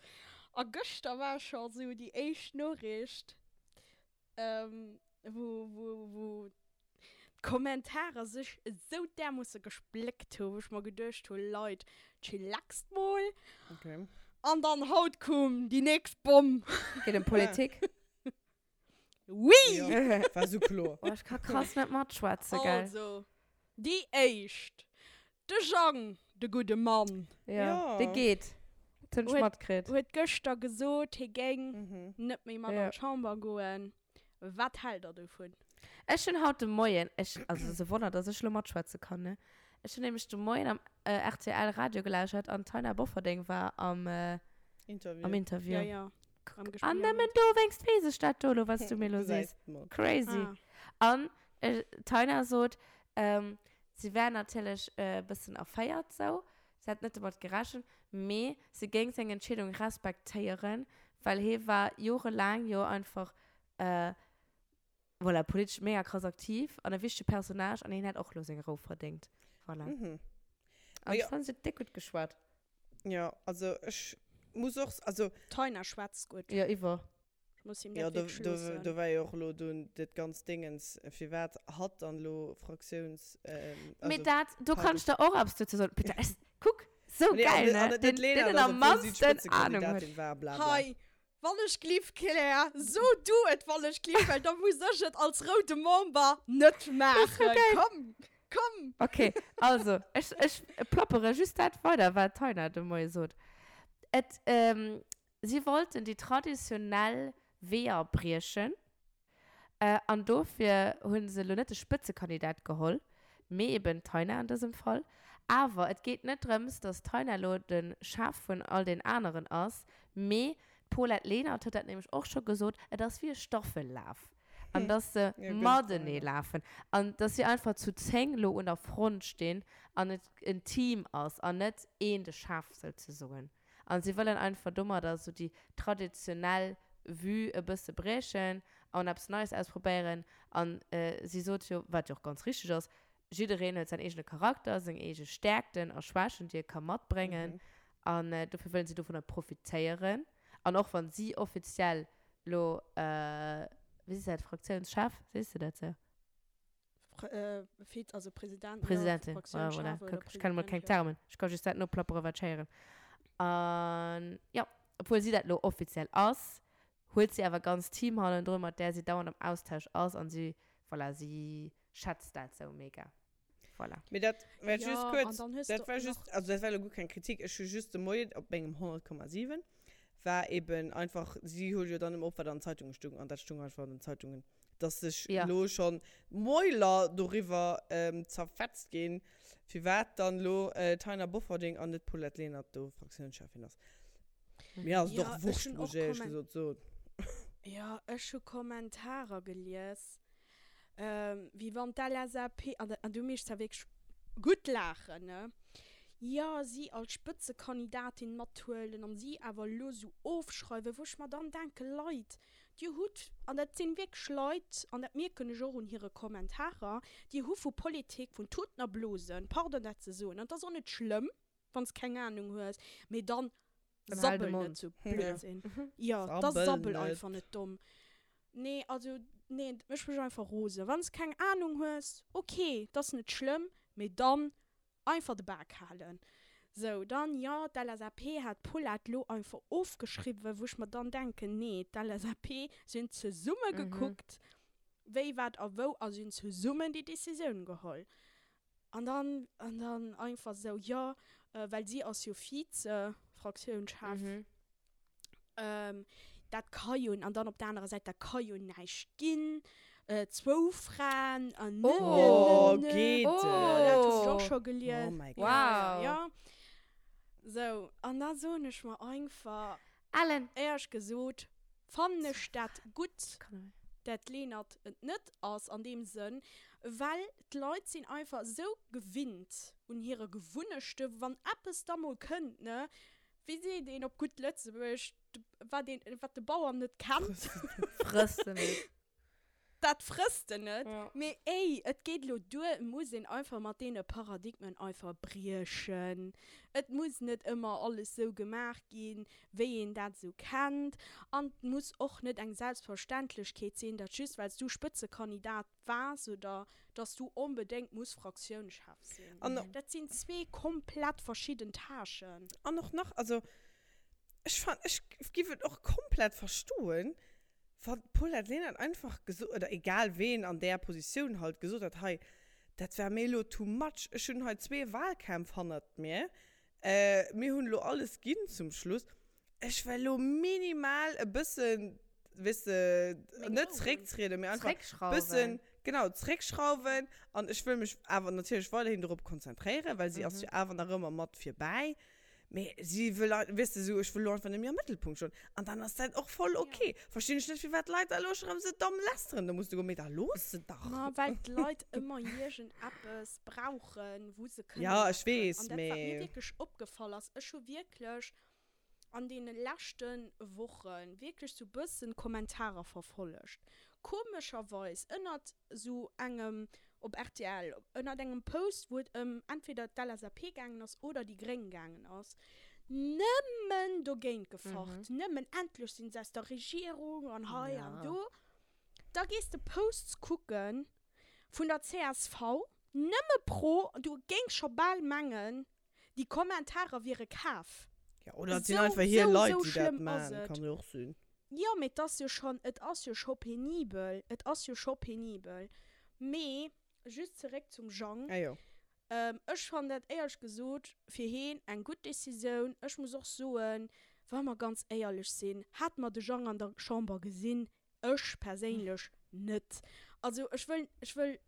A gëschter war scho sou déi éischt Noriicht, ähm, wou, wou, wou d'Kommentarer sech esou därmoosse gespléckt hu, wou ech mer geduecht hu, Leit, chillaxt mol. Okay. An dann haut koum déi nächst Bomm. Geet ëm Politik? Oui! Ja, war sou kloer. Oh, ech ka krass net matschwätzen, gell? Also, déi éischt, de Jang, de gudde Mann. Ja, Ja. dee geet. Dat hunn ech Huet- matkritt. Huet gëschter gesot, hie géing Mhm. net méi mat Ja. an d'Chamber goen. Wat hält der dovun? Ech hunn haut de Moien, ech, also et ass e Wonner, dass ech elo matschwätze kann, ne? Ech hunn nämlech de Moien am rtl Radio gelauschert an d'Taina Bofferding war am, Interview. am Interview. Ja, ja. Am Gespräch. An nëmmen dowéinst weess ech dat do elo, wat s du mir elo sees. Crazy. Ah. An d'Taina sot, si wär natierlech e bëssen erféiert sou, si hätt net domat gerechent, mee si géing seng Entscheedung respektéieren, well hie war jorelaang jo einfach, voilà, politesch mega krass aktiv an e wichtege Personnage an hien hätt och elo seng Rou verdéngt. Voilà. Mhm. An ech Jo. fannen, si huet déck gutt geschwat. Ja, also ech muss och, also. D'Taina schwätzt gutt. Jo, iwwer. Ech muss him Ja, dat do, wierklech do, loossen. do war jo och elo dunn dat ganzt Dingens, firwat hatt dann elo Fraktiouns, ähm, Mee also dat, do kann ech Partei. der och eppes dozou soen. Putain, ech, kuck, sou Nee, an geil, net, an ne? net Deen, d'Lena, deen dass am obwuel si mannsten Ahnung huet. d'Spëtzekandidatin war, bla bla. Hei, wann ech gliff, Claire, so du et, wann ech gliff, well da muss ech et als roude Member net maachen. Komm, komm! Okay, also, ech, ech plappere just dat weider, wat d'Taina de Moie sot. Et, ähm, Si wollten déi traditionell Weeër briechen an dofir hu se elo net de Spëtzekandidat geholl, mee eben d'Taina an dësem Fall. Awer et geet net drëms, datt d'Taina elo de Chef vun all den aneren ass, mee d'Paulette Lenert huet dat nämlech och scho gesot, et ass wéi e Staffellaf an datt se matenee lafen an datt si einfach zu 10 elo un der Front stinn an et en Team ass an net een de Chef souzesoen. An si wëllen einfach domadder sou déi traditionell Vue e bësse briechen. An eppes Neies ausprobéieren. An si sot jo, wat jo och ganz richteg ass, jiddereen huet säin eegene Charakter, seng eege Stäerkten a Schwächen, déi e ka matbréngen. An dofir wëllen si dovunner profitéieren. An och wann si offiziell lo, wéi sees de dat, Fraktiounschef, sees de dat sou? Viz, also President, Presidentin, ja, voilà, kuck, ech kenne mol keng Termen, ech ka just dat noplapperen, wat ech héieren. An jo, obwuel si dat lo offiziell ass, huet si awer e ganzt Team hannendrun, mat där si dauernd am Austausch ass an si, voilà, si schätzt dat sou mega. Voilà. Mee dat war just kuerz, dat war just, also dat war elo guer keng Kritik, ech hu just de Moien op mengem 100,7 war eben einfach, si huet jo dann ëmmer op, wat an den Zeitunge stung, an dat stung einfach an den Zeitungen, dass sech elo schonn d'Mäuler doriwwer zerfetzt ginn, firwat dann elo d'Taina Bofferding an net d'Paulette Lenert do Fraktiounscheffin ass. Mir ass et och wurscht, muss ech éierlech gesot soen. Jo, ech hu Kommentarer gelies, wéi wann d'LSAP, an du méchs da wierklech gutt laachen, ne, jo, si als Spëtzekandidatin mathuelen an si awer elo esou ofschreiwen, wou ech mer dann denken, Leit, dir hutt, an dat sinn wierklech Leit, an dat mierken ech och un hire Kommentarer, dir hu vu Politik, vun Tuten a Blosen, pardon dat ze soen, an et ass och net schlëmm, wann s keng Ahnung hues, mee dann sabbel net sou Blödsinn. Jo, da sabbel einfach net domm. Nee, also nee, dat mécht mech einfach rosen. Wann s keng Ahnung hues, ok, dat ass net schlëmm, mee dann einfach de Bak halen. Sou, dann, jo, d'LSAP hat d'Paulette lo einfach ofgeschriwwen, wou ech mer dann denken, nee, d'LSAP, si hunn zesumme gekuckt, wéi, wat a wou a si hunn zesummen déi Decisioun geholl. An dann, an dann einfach sou, jo, well si ass jo Vize-Fraktiounschef, dat ka jo, an dann op der anerer Säit, dat ka jo näischt ginn, zwou Fraen an ne, ne, ne, ne. Oh, geet Jo, dat hunn ech och et? scho gelies. Oh mäi Gott. Ja, ja, ja. Sou, an da soen ech mer einfach, Ellen! Éierlech gesot fannen ech dat gutt, dat d'Lenert et net ass an deem Sënn, well d'Leit sinn einfach esou gewinnt un hire Gewunnechten, wann eppes da mol kënnt, ne, wéi seet een op gutt Lëtzebuergesch, wat een, wat de Bauer net kennt, Frësst en net. Dat frësst en net. Ja. Mee ey, et geet elo duer, et muss een einfach mat deene Paradigmen einfach briechen. Et muss net ëmmer alles sou gemaach ginn, wéi een dat esou kennt. An et muss och net eng Selbstverständlechkeet sinn, datt just well s du Spëtzekandidat waars oder datt s du onbedéngt muss Fraktiounschef sinn. An. Dat sinn zwee komplett verschidden Tâchen. An och nach, also ech fan, ech giff et och komplett verstoen, Wann d'Paulette Lenert einfach gesot, oder egal ween an där Positioun halt gesot hätt, hei, dat war mir elo too much, ech hunn hei zwee Wahlkämpf hannert mir, mir hunn elo alles ginn zum Schluss, ech well elo minimal e bëssen, weess de, net zrécktrieden, mee einfach e bëssen, genau, zréckschrauwen an ech wëll mech awer natierlech weiderhin dorop konzentréieren, well si ass jo awer nach ëmmer mat virbäi. Mee si wëll, weess de, esou, ech wëll elo einfach net méi am Mëttelpunkt stoen. An dann ass dat och voll ok. Verstinn ech net, firwat d'Leit da elo scho rëm esou domm lästeren. Da muss de goen, mee da looss se dach. Ma well d'Leit ëmmer iergendeppes brauchen, wou se kënnen Ja, ech lästeren. weess, An dat, wat mir mee. wierklech opgefall ass, ech hu wierklech an deene leschte Woche wierklech sou bëssen Kommentarer verfollegt. Komescherweis ënnert sou engem op rtl, ënnert engem Post, wou et ëm entweder d'LSAP gaangen ass oder déi Gréng gaangen ass, nëmmen dogéint gefacht, nëmmen endlech sinn se aus der Regierung an hei an do. Da gees de Posts kucke vun der csv, nëmme pro, du géings scho bal mengen, déi Kommentarer wiere kaf. Ja, oder et sinn Esou, einfach hir esou, Leit, esou déi dat schlëmm ass maachen, et. kann jo och sinn. Jo, mee et ass jo schonn, et ass jo scho penibel, et ass jo scho penibel. Mee just zeréck zum Jang, Ah jo. ech fannen dat éierlech gesot fir heen eng gutt Decisioun. Ech muss och soen, wa mer ganz éierlech sinn, hate mer de Jang an der Chamber gesinn, Ech perséinlech net. Also ech wëll, ech wëll,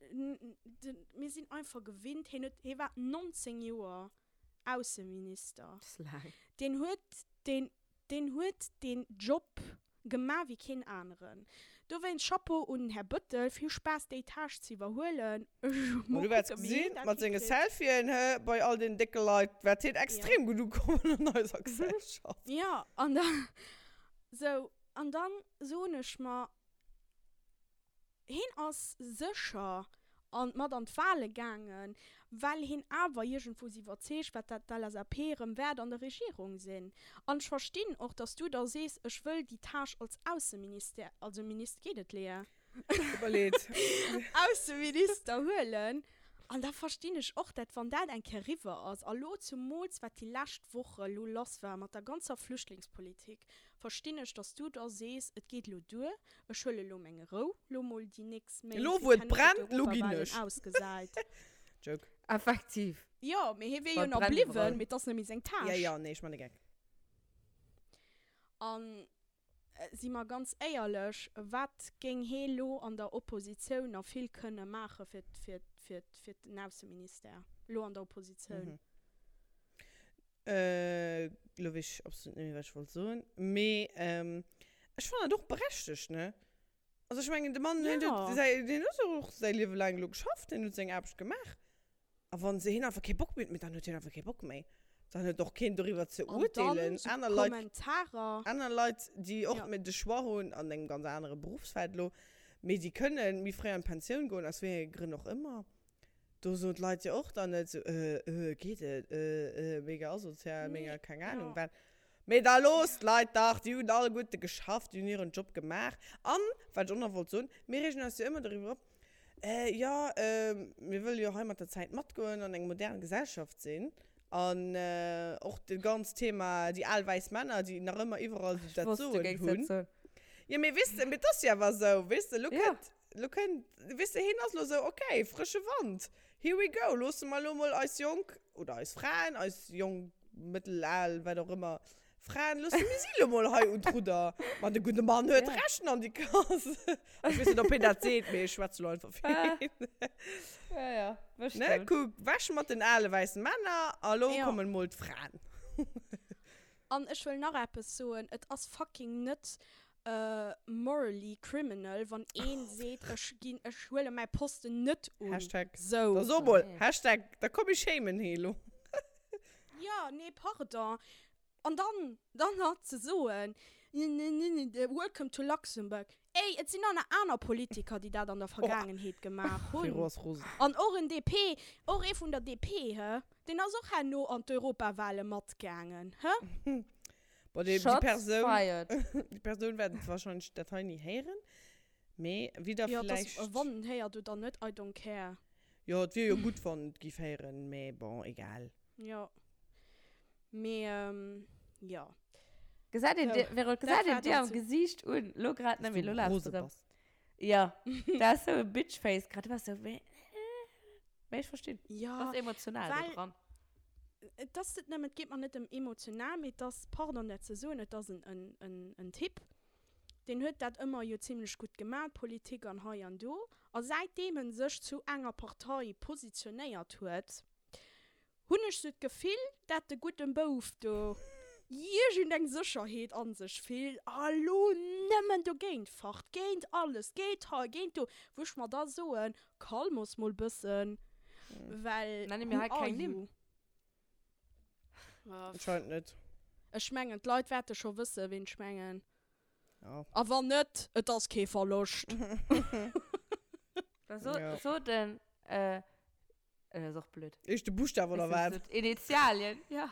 mir sinn einfach gewinnt, hien huet, hie war 19 Joer Ausseminister. Dat ass laang. Deen huet deen, deen huet deen Job gemaach wéi keen aneren. Dowéinst Chapeau un den Här Bëttel, vill Spaass déi Tâche ze iwwerhuelen. Ech Ma mol du wäerts kucken, wéi hien gesinn, dat mat senge hikritt. Selfien, hë, bei all den décke Leit wäert hien Ja. extrem gutt ukommen an eiser Gesellschaft. Jo, an da, sou, An dann soen ech mer. Heen ass sécher an mat an d'Wahle gaangen, well heen awer iergendwou iwwerzeegt war, dat d'LSAP erëm wäert an der Regierung sinn. An ech verstinn och, dass du da sees, ech wëll déi Tâche als Ausseministère, also Minister, geet et, Léa? Tut mer leed. Ausseminister huelen. An da verstinn ech och, dat wann dat eng Kéier eriwwer ass, a lo zumools wat déi lescht Woche lo lass war mat der ganzer Flüchtlingspolitik, verstinn ech, dass du da sees, et geet elo duer, ech huele lo meng Rou, lo mol déi nächst Méint, Elo fir wou et kennen fir brennt, lo ginn d'Europawahlen ech. ausgesäit. Joke. Effektiv. Jo, mee hie wier jo Wann nach brennt bliwwen, iwwerall. mee et ass net méi seng Ja, Tâche. ja, nee, ech man e Geck. An Si mer ganz éierlech, wat géing hee lo an der Oppositioun nach vill kënne maache fir, fir, fir, fir den Ausseministère, lo an der Oppositioun? Elo weess ech absolut net méi, wat ech wollt soen. Mee ech fannen dat och berechtegt, ne? Also ech mengen, de Mann, deen huet säi, deen huet och säi Liewe laang elo geschafft, deen huet seng Aarbecht gemaach. A wann se hien einfach kee Bock méi huet, dann huet hien einfach kee Bock méi. Dann huet och keen doriwwer ze urteelen. Aner Leit, aner Leit, déi och ja. de Choix hunn an engem ganz anere Berufsfeld lo, mee déi kënnen méi fréi an d'Pensioun goen, aus wéi enge Grënn och ëmmer. Do soen d'Leit jo och dann net sou, äh, äh, geet et, äh, äh, mega asozial, mega keng Ahnung wat. Mee da loosst d'Leit dach, déi hunn alleguerte geschafft, déi hunn hiren Job gemaach. An, wat ech och nach wollt soen, mir reegen eis jo ëmmer doriwwer op, Äh, jo, mir wëlle jo hei mat der Zäit matgoen an eng modern Gesellschaft sinn. An och dat ganzt Thema, déi al wäiss Männer, déi nach ëmmer iwwerall esou dat Soen hunn. Jo, mee weess de, mee et ass jo awer esou, weess de, elo kënnt, elo kënnt, weess de, hien ass elo esou, okay, frësche Wand, here we go, loosse mer elo mol eis jonk, oder eis Fraen, eis jonk, mëttel, al, wat och ëmmer, Fraen, loosse mir si lo mol hei un d'Rudder. Ma de gudde Mann huet Ja. Recht an déi Kass. Ech weess net, ob hien dat seet, mee ech schwätze lo einfach fir Ah. hien. Ja, ja, Ne, bestimmt. kuck, weg mat den ale wäissen Männer a lo Ja. kommen mol d'Fraen. An ech wëll nach eppes soen, Et ass fucking net morally criminal, wann een seet, ech ginn, ech huele mäi Posten net un. Hashtag. Sou. Da so mol, Hashtag, da komm ech shamen hee lo. Jo, nee, pardon. An dann, dann nach ze soen, Welcome to Luxembourg. Ey, et sinn nach aner Politiker, déi dat an der Vergaangenheet gemaach hunn. Vero ass rosen. An och en DP, och ee vun der DP, hë, deen ass och herno an d'Europawale matgaangen, hë? Bon, déi, déi Shots Persoun, fired. déi Persoun wäert wahrscheinlech dat hei ni héieren. Mee wie da Jo, et ass, vläicht. wann en héiert oder net, I don't care. Jo, et wier jo gutt, wann et giff héieren, mee bon, egal. Jo. Mee, jo. Gesäit een dir, Vero, Dat gesäit een war dir dann am zu. Gesiicht un, lo grad net Dass méi, du lo laachs rose du rëm. bass. Jo, dat ass sou e Bitchface grad, du bass sou, mee, mee ech verstinn. Jo, Bass emotional do well dran. et ass net nëmmen, et geet mer net ëm emotional, mee et ass, pardon dat ze soen, et ass en, en, en, en Typ, deen huet dat ëmmer jo zimlech gutt gemaat, Politik an hei an do, a säitdeem en sech zu enger Partei positionéiert huet, hunn ech sou d'Gefill, dat de gudden Bouf do iergend eng Sécherheet an sech fillt a lo nëmmen dogéint facht, géint alles, géint hei, géint do, wou ech mer da soen, calmos mol bëssen, well Nenne mir who hei are keng Nimm. you? Anscheinend net. Ech mengen, d'Leit wäerte scho wëssen, ween ech mengen. Ja. A wann net, et ass kee Verloscht. Da so, Ja. so den, äh, äh, ass och blöd. Éischte Buschtaf oder wat? Initialien, ja.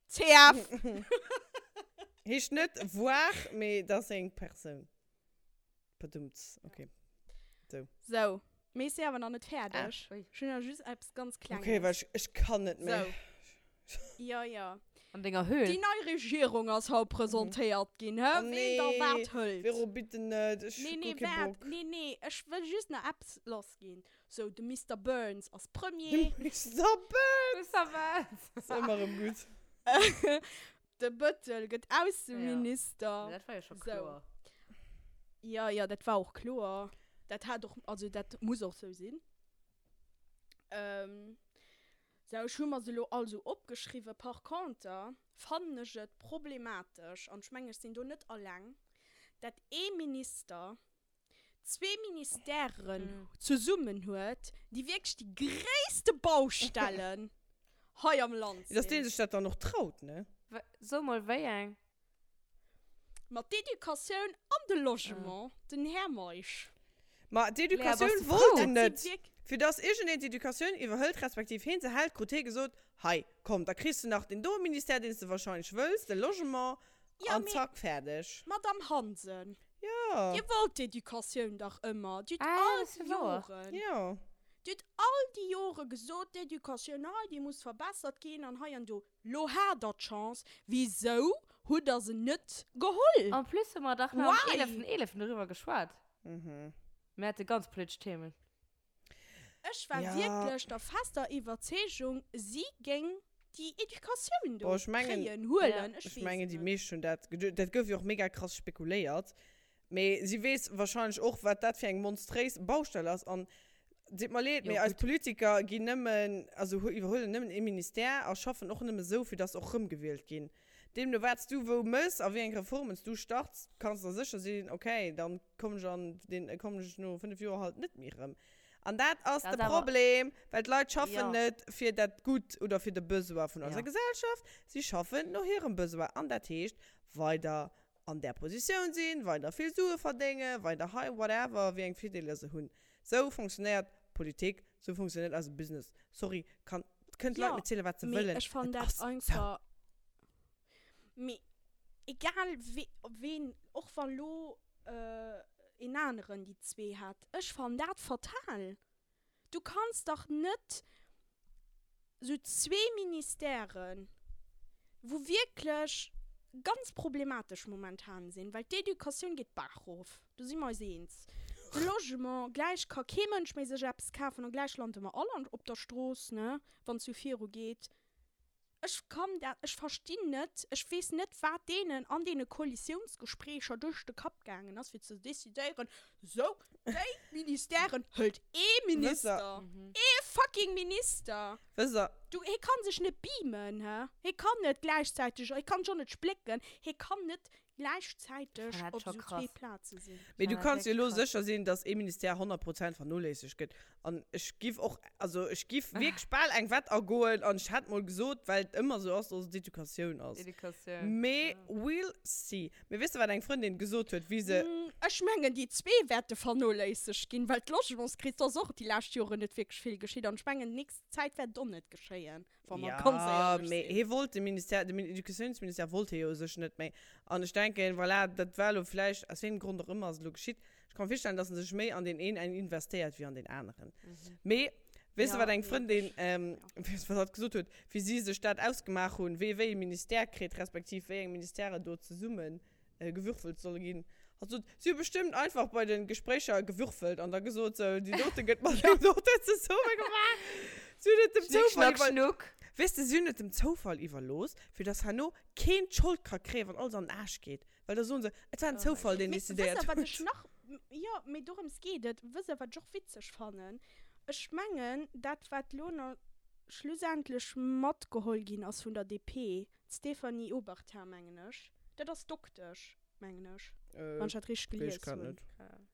CF! Heescht net voir, mee dat ass eng Persoun. Padumts, okay. So. So, mee ech si awer nach net fäerdeg. Ah, ui. Ech hunn nach just eppes ganz Klenges. Okay, well ech, ech kann net méi. So. Jo, jo. An denger Höhl. Déi nei Regierung ass haut presentéiert ginn, hë? Oh Ween da nee, wat hëlt. Vero, bitte net, ech Nee, hu nee, guer kee waart, Bock. nee, nee, ech wëll just nach eppes lassginn. So, de Mister Burns ass Premier. De Mister Burns! Mister Burns! Ass ëmmer erëm gutt. De Bëttel gëtt Ausseminister. Ja. Dat war jo scho kloer. Jo, jo, dat war och kloer. Dat hat och, also dat muss och sou sinn. Sou, ech hu mer se elo all sou opgeschriwwen. Par conter fannen ech et problematesch, an ech mengen, ech sinn do net alleng, dat ee Minister zwee Ministèren zesummen huet, déi wierklech déi gréisste Baustellen hei am Land Dass dee sinn. sech dat dann och traut, ne? So mol, wéi eng? Ma d'Educatioun an de Logement, den Här Meisch. Ma d'Educatioun wollt en net. Fir dass iergendeen d'Educatioun iwwerhëlt, respektiv heen se hält, krut hee gesot, Hei, komm, da kriss de nach deen doe Ministère, deen s de wahrscheinlech wëlls, de Logement, an zack, fäerdeg. Madame Hansen, Dir wollt d'Educatioun dach ëmmer. Dir hutt all déi Joren, Dir hutt all déi Jore gesot, d'Educatioun hei, déi muss verbessert ginn an hei an do. Lo hat der d'Chance, wisou hutt der se net geholl? En plus hu mer dach nach am 11. 11. doriwwer geschwat. Mir hate ganz politesch Themen. Ech war wierklech der fester Iwwerzeegung, si géing déi Educatioun do kréien, huelen, ech weess et net. Ech mengen, déi meescht hunn dat geduecht. Dat gouf jo och mega krass spekuléiert. Mee si weess wahrscheinlech och, wat dat fir eng monstréis Baustell ass. An deet mer leed, mee eis Politiker ginn nëmmen, also iwwerhuelen nëmmen ee Ministère a schaffen och nëmme sou, fir dass se och rëmgewielt ginn. Deemno wat s du wou mëss a wéi eng Reformen s du starts, kanns der sécher sinn, okay, dann kommen ech an deen, kommen ech no 5 Joer halt net méi rëm. An dat ass de Problem, well d'Leit schaffen net fir dat Gutt oder fir de Besoin vun eiser Gesellschaft, si schaffen no hirem Besoin. An dat heescht weider an där Positioun sinn, weider vill Sue verdéngen, weider hei whatever, wéi eng Virdeeler se hunn. Sou fonctionnéiert Politik, sou fonctionnéiert eise Business. Sorry, kann, kënnen d'Leit mir zielen, wat se Mee wëllen, ech fannen et dat ass sou. einfach, mee egal wee, ween, och wa lo een aneren déi zwee hätt, ech fannen dat fatal. Du kanns dach net sou zwee Ministèren, wou wierklech ganz problematesch momentan sinn, well d'Educatioun geet d'Baach rof, do si mer eis eens, de Logement, gläich ka kee Mënsch méi sech eppes kafen a gläich lande mer all op der Strooss, ne, wann et sou virugeet. Ech kann dat, ech verstinn net, ech weess net, wat deenen an deene Koalitiounsgespréicher duerch de Kapp gaangen ass, fir ze decidéieren, sou, déi Ministèren hëlt ee Minister, ee fucking Minister! Wësst Der. Du, hie kann sech net beamen, hä? Hie kann net gläichzäiteg, hie kann sech och net splécken, hie kann net gläichzäiteg op esou zwee Plaze sinn. Mee du kanns jo elo sécher sinn, dass ee Ministère 100 Prozent vernoléissegt gëtt. An ech giff och, also ech giff wierklech bal eng Wett agoen an ech hätt mol gesot, well et ëmmer esou ass, dass et d'Educatioun ass. Mee we'll see. Mee weess de, wat eng Frëndin gesot huet, wéi se. Ech mengen, déi zwee wäerte vernoléissegt ginn, well d'Logementskris, do ass och déi lescht Joren net wierklech vill geschitt. An ech mengen, déi nächst Zäit wäert et och net geschéien. Wa mer ganz Ja, éierlech mee sinn. hie wollt de Ministère, de Educatiounsministère wollt hie jo u sech net méi. An ech denken, voilà, dat war elo vläicht, aus wéi engem Grond och ëmmer ass et elo geschitt. Ech ka mer virstellen, datt en sech méi an deen een investéiert wéi an deen aneren. Mee weess de, Ja, wat eng mee Frëndin, ech, ja. weess de, wat hatt gesot huet, wéi si sech dat ausgemaach hunn, wee wéi e Ministère kritt, respektiv wéi eng Ministèrë do zesummen gewürfelt solle ginn. Hatt sot, si hu bestëmmt einfach bei de Gespréicher gewürfelt an da gesot, sou, déi dote gëtt mat deem doten zesumme gemaach. Si hunn et dem Schnick, Zoufall schnack, iwwer, schnuck. weess de, si hunn et dem Zoufall iwwerlooss, fir dass herno keen d'Schold ka kréien, wann alles an den Aarsch geet. Well da soen se, et war en Oh mäi Zoufall, Gott. deen Mee wësst decidéiert der, wat ech huet. nach, jo, mee dorëms geet et. Wësst der, wat ech och witzeg fannen? Ech mengen, dat, wat elo nach schlussendlech matgeholl ginn ass vun der DP, D'Stéphanie Obertin, mengen ech. Dat ass Doktesch, mengen ech, wann ech dat richteg Weess gelies ech grad hunn. net.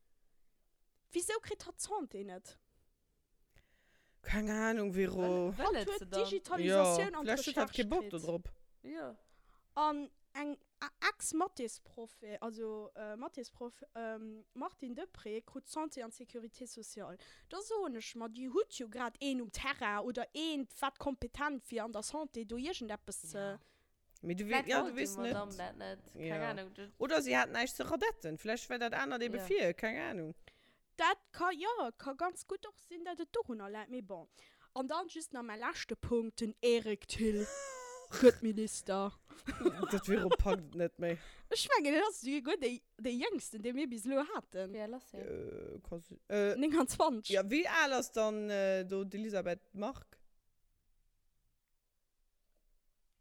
Wisou kritt hatt d'Santé net? Keng Ahnung, Vero. Wëll Hatt et huet se dann? Jo, Digitalisatioun an vläicht huet hatt d'Recherche kee Bock kritt. do drop. Jo. An eng Ex-Mathésproff, also Mathésproff, Martine Deprez krut d'Santé an d'Sécurité sociale. Da soen ech mer, Dir hutt jo grad een um Terrain oder eent, wat kompetent wier an der Santé do iergendeppes ze. Mee du, Vläicht ja, du wollt déi weess net. Madame dat net. Keng Ja. Ahnung. Dat. Oder si hat näischt ze radetten. Vläicht war dat anert ebe Ja. vir, keng Ahnung. Dat ka, jo, ka ganz gutt och sinn, datt et dorunner läit, mee bon. An dann just nach mäi leschte Punkt, den Eric Thill gëtt Minister. Dat Vero packt et net méi. Ech mengen, en ass souguer dee, dee Jéngsten, dee mir bis elo haten. Wéi al ass hien? Äh, ka si, äh. 29. Ja, wéi al ass dann do d'Elisabeth Margue?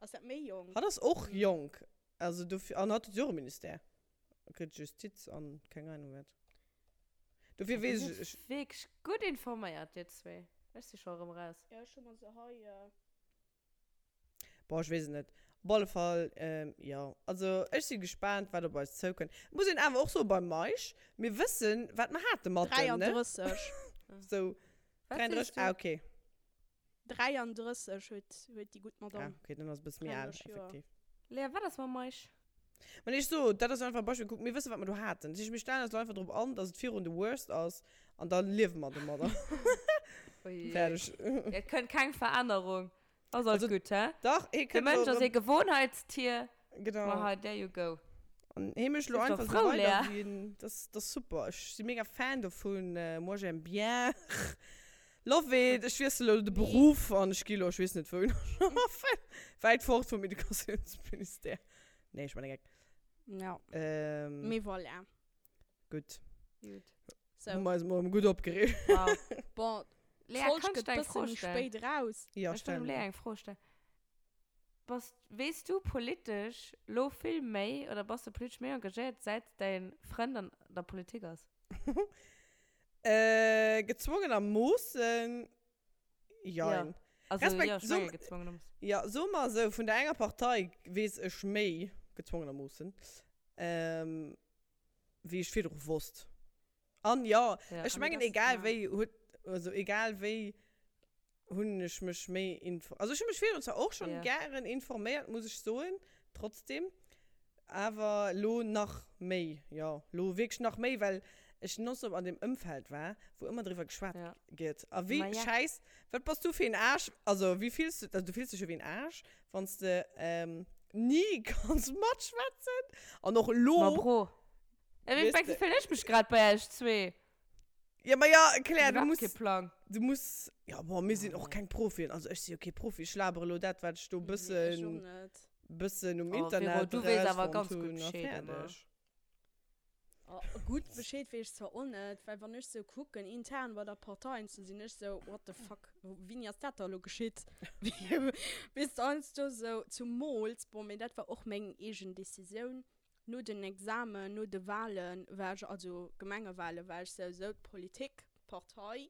Ass dat méi jonk? Hatt ass och jonk. Also dofir, an hatt huet jo och e Ministère. Kritt Justiz an keng Ahnung wat. Dofir Dir weess sidd ech, ech. wierklech gutt informéiert, dir zwee. Ech si scho erëm raus. Jo, ech hu mer se hei. Boah, ech weess et net. Op alle Fall, jo. Also ech si gespaant, wat op eis zoukënnt. Muss een awer och soen, beim Meisch, mir wëssen, wat mer hate mat em, ne? 33. Sou, Wat 33, sees du? ah, okay. 33 huet, huet déi gutt Ah, Madame. okay, dann ass e bësse méi al, 33 Joer. effektiv. Léa, wat ass mam Meisch? Mä ech so, dat ass einfach e Beispill, kuck, mir wëssen, wat mer do haten. Dat heescht, mir stellen eis elo einfach drop an, dass et virun the worst ass an da liewe mer domadder. Fäerdeg. Et kënnt keng Verännerung. Ass alles Also, gutt, hä? Dach, hee De kënnt Mënsch elo ass ee erëm. Gewohnheitstier. Genau. Ma hei, there you go. An hee mécht elo Sief doch einfach esou frou, weider, Lea. wéi en, dat ass, dat ass super. Ech si mega Fan dovun. Moi j'aime bien. Love it. Ech wiessel elo de Nee. Beruff an ech gi elo, ech weess net wouhin, schaffen. Wäit fort vum Educatiounsministère. Nee, ech man e Geck. Ja. Ähm, Mee voilà. Gutt. Gutt. So. Hu mer eis mol gutt opgereegt. Wow. Bon, Lea, d'Folg kann ich gëtt dir eng bësse Fro méi stellen? spéit raus. Ja, Ech wëll stell dem Lea mol. eng Fro stellen. Bass, weess du politesch lo vill méi oder bass du politesch méi engagéiert, säit däin Frënd an der Politik ass? Äh, gezwongenermoossen Jein. Ja. Also, Respekt, ja, ech so, menge gezwongenermoossen. Ja, soe mer esou, vun der enger Partei weess ech méi, gezwongenermoossen, ähm, wéi ech virdru wosst. An jo, Ja. ech Ah, mee mengen, das, egal ja. wéi huet, also egal wéi hunn ech mech méi info, also ech hu mech virdrun zwar och schonn Ja. gären informéiert, muss ech soen, trotzdem, Awer lo nach méi, jo, lo wierklech nach méi, well ech nonstop an deem Ëmfeld war, wou ëmmer driwwer geschwat Ja. gëtt. A wéi Ma ja. schäiss, wat bass du fir een Aarsch, also wéi fills du, also du fills dech jo wéi een Aarsch, wann s de ni kanns matschwätzen an och Ma lo, Bro, wéi weess wéi de. fillen ech mech grad bei iech zwee? Ja, ma ja, Claire, du Iwwerhaapt muss, kee Plang. du muss, ja, bon, mir sinn Ah, och nee. keng Profien, also ech si jo kee Profi, ech labere lo dat, wat ech do Nee, ech bëssen, och net. bëssen um Oh, Vero, Internet du weess awer erausfonnt ganz gutt hunn a Bescheed ëmmer. fäerdeg. Oh, gutt Bescheed weess ech zwar och net, well wann ech sou kucken, intern bei der Partei an sou, sinn ech sou, what the fuck, wéini ass dat da lo geschitt? Weess de, heiansdo sou, zumools, bon, mee dat war och meng eegen Decisioun, No den Examen, no de Wahlen war ech, also Gemengewahlen, war ech sou, sou d'Politik, d'Partei,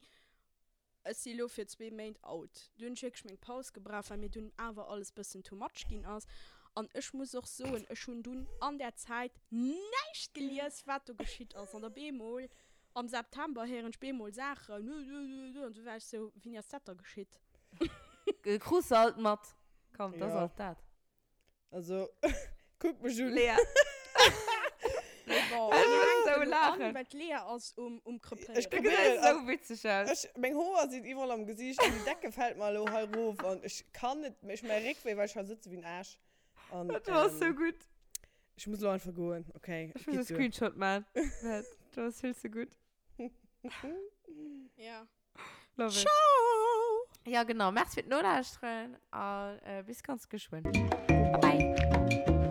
ech si lo fir zwee Méint out. Du hunn ech wierklech meng Paus gebraucht, well mir dunn awer alles bëssen too much ginn ass. An ech muss och soen, ech hunn dunn an där Zäit näischt gelies, wat do geschitt ass. An op eemol am September héieren ech bemol Saachen, an du war ech sou, wéini ass dat da geschitt? Krus se alt mat. Komm, dat ass Jo. alt dat. Also, kuck mech un. Lea. Bon, Ech mir muss hänken sou elo an, laachen. well d'Lea ass um, um Ech Krepéieren. Du probéieren, gesäis sou witzeg aus. Ech, meng Hoer sinn iwwerall am Gesiicht an déi Decke fält mer elo hei rof an ech kann net méi, ech hu mäi Réckwéi, well ech hei sëtze wéi en Aarsch. An, Dat war sou ähm, gutt. ech muss elo einfach goen, okay? Ech muss e Geet duer. Screenshot man. Dat war vill ze gutt. Ja. Love it. Ciao! Ja, genau. Merci fir d'Nolauschteren a bis ganz geschwënn. Bye bye!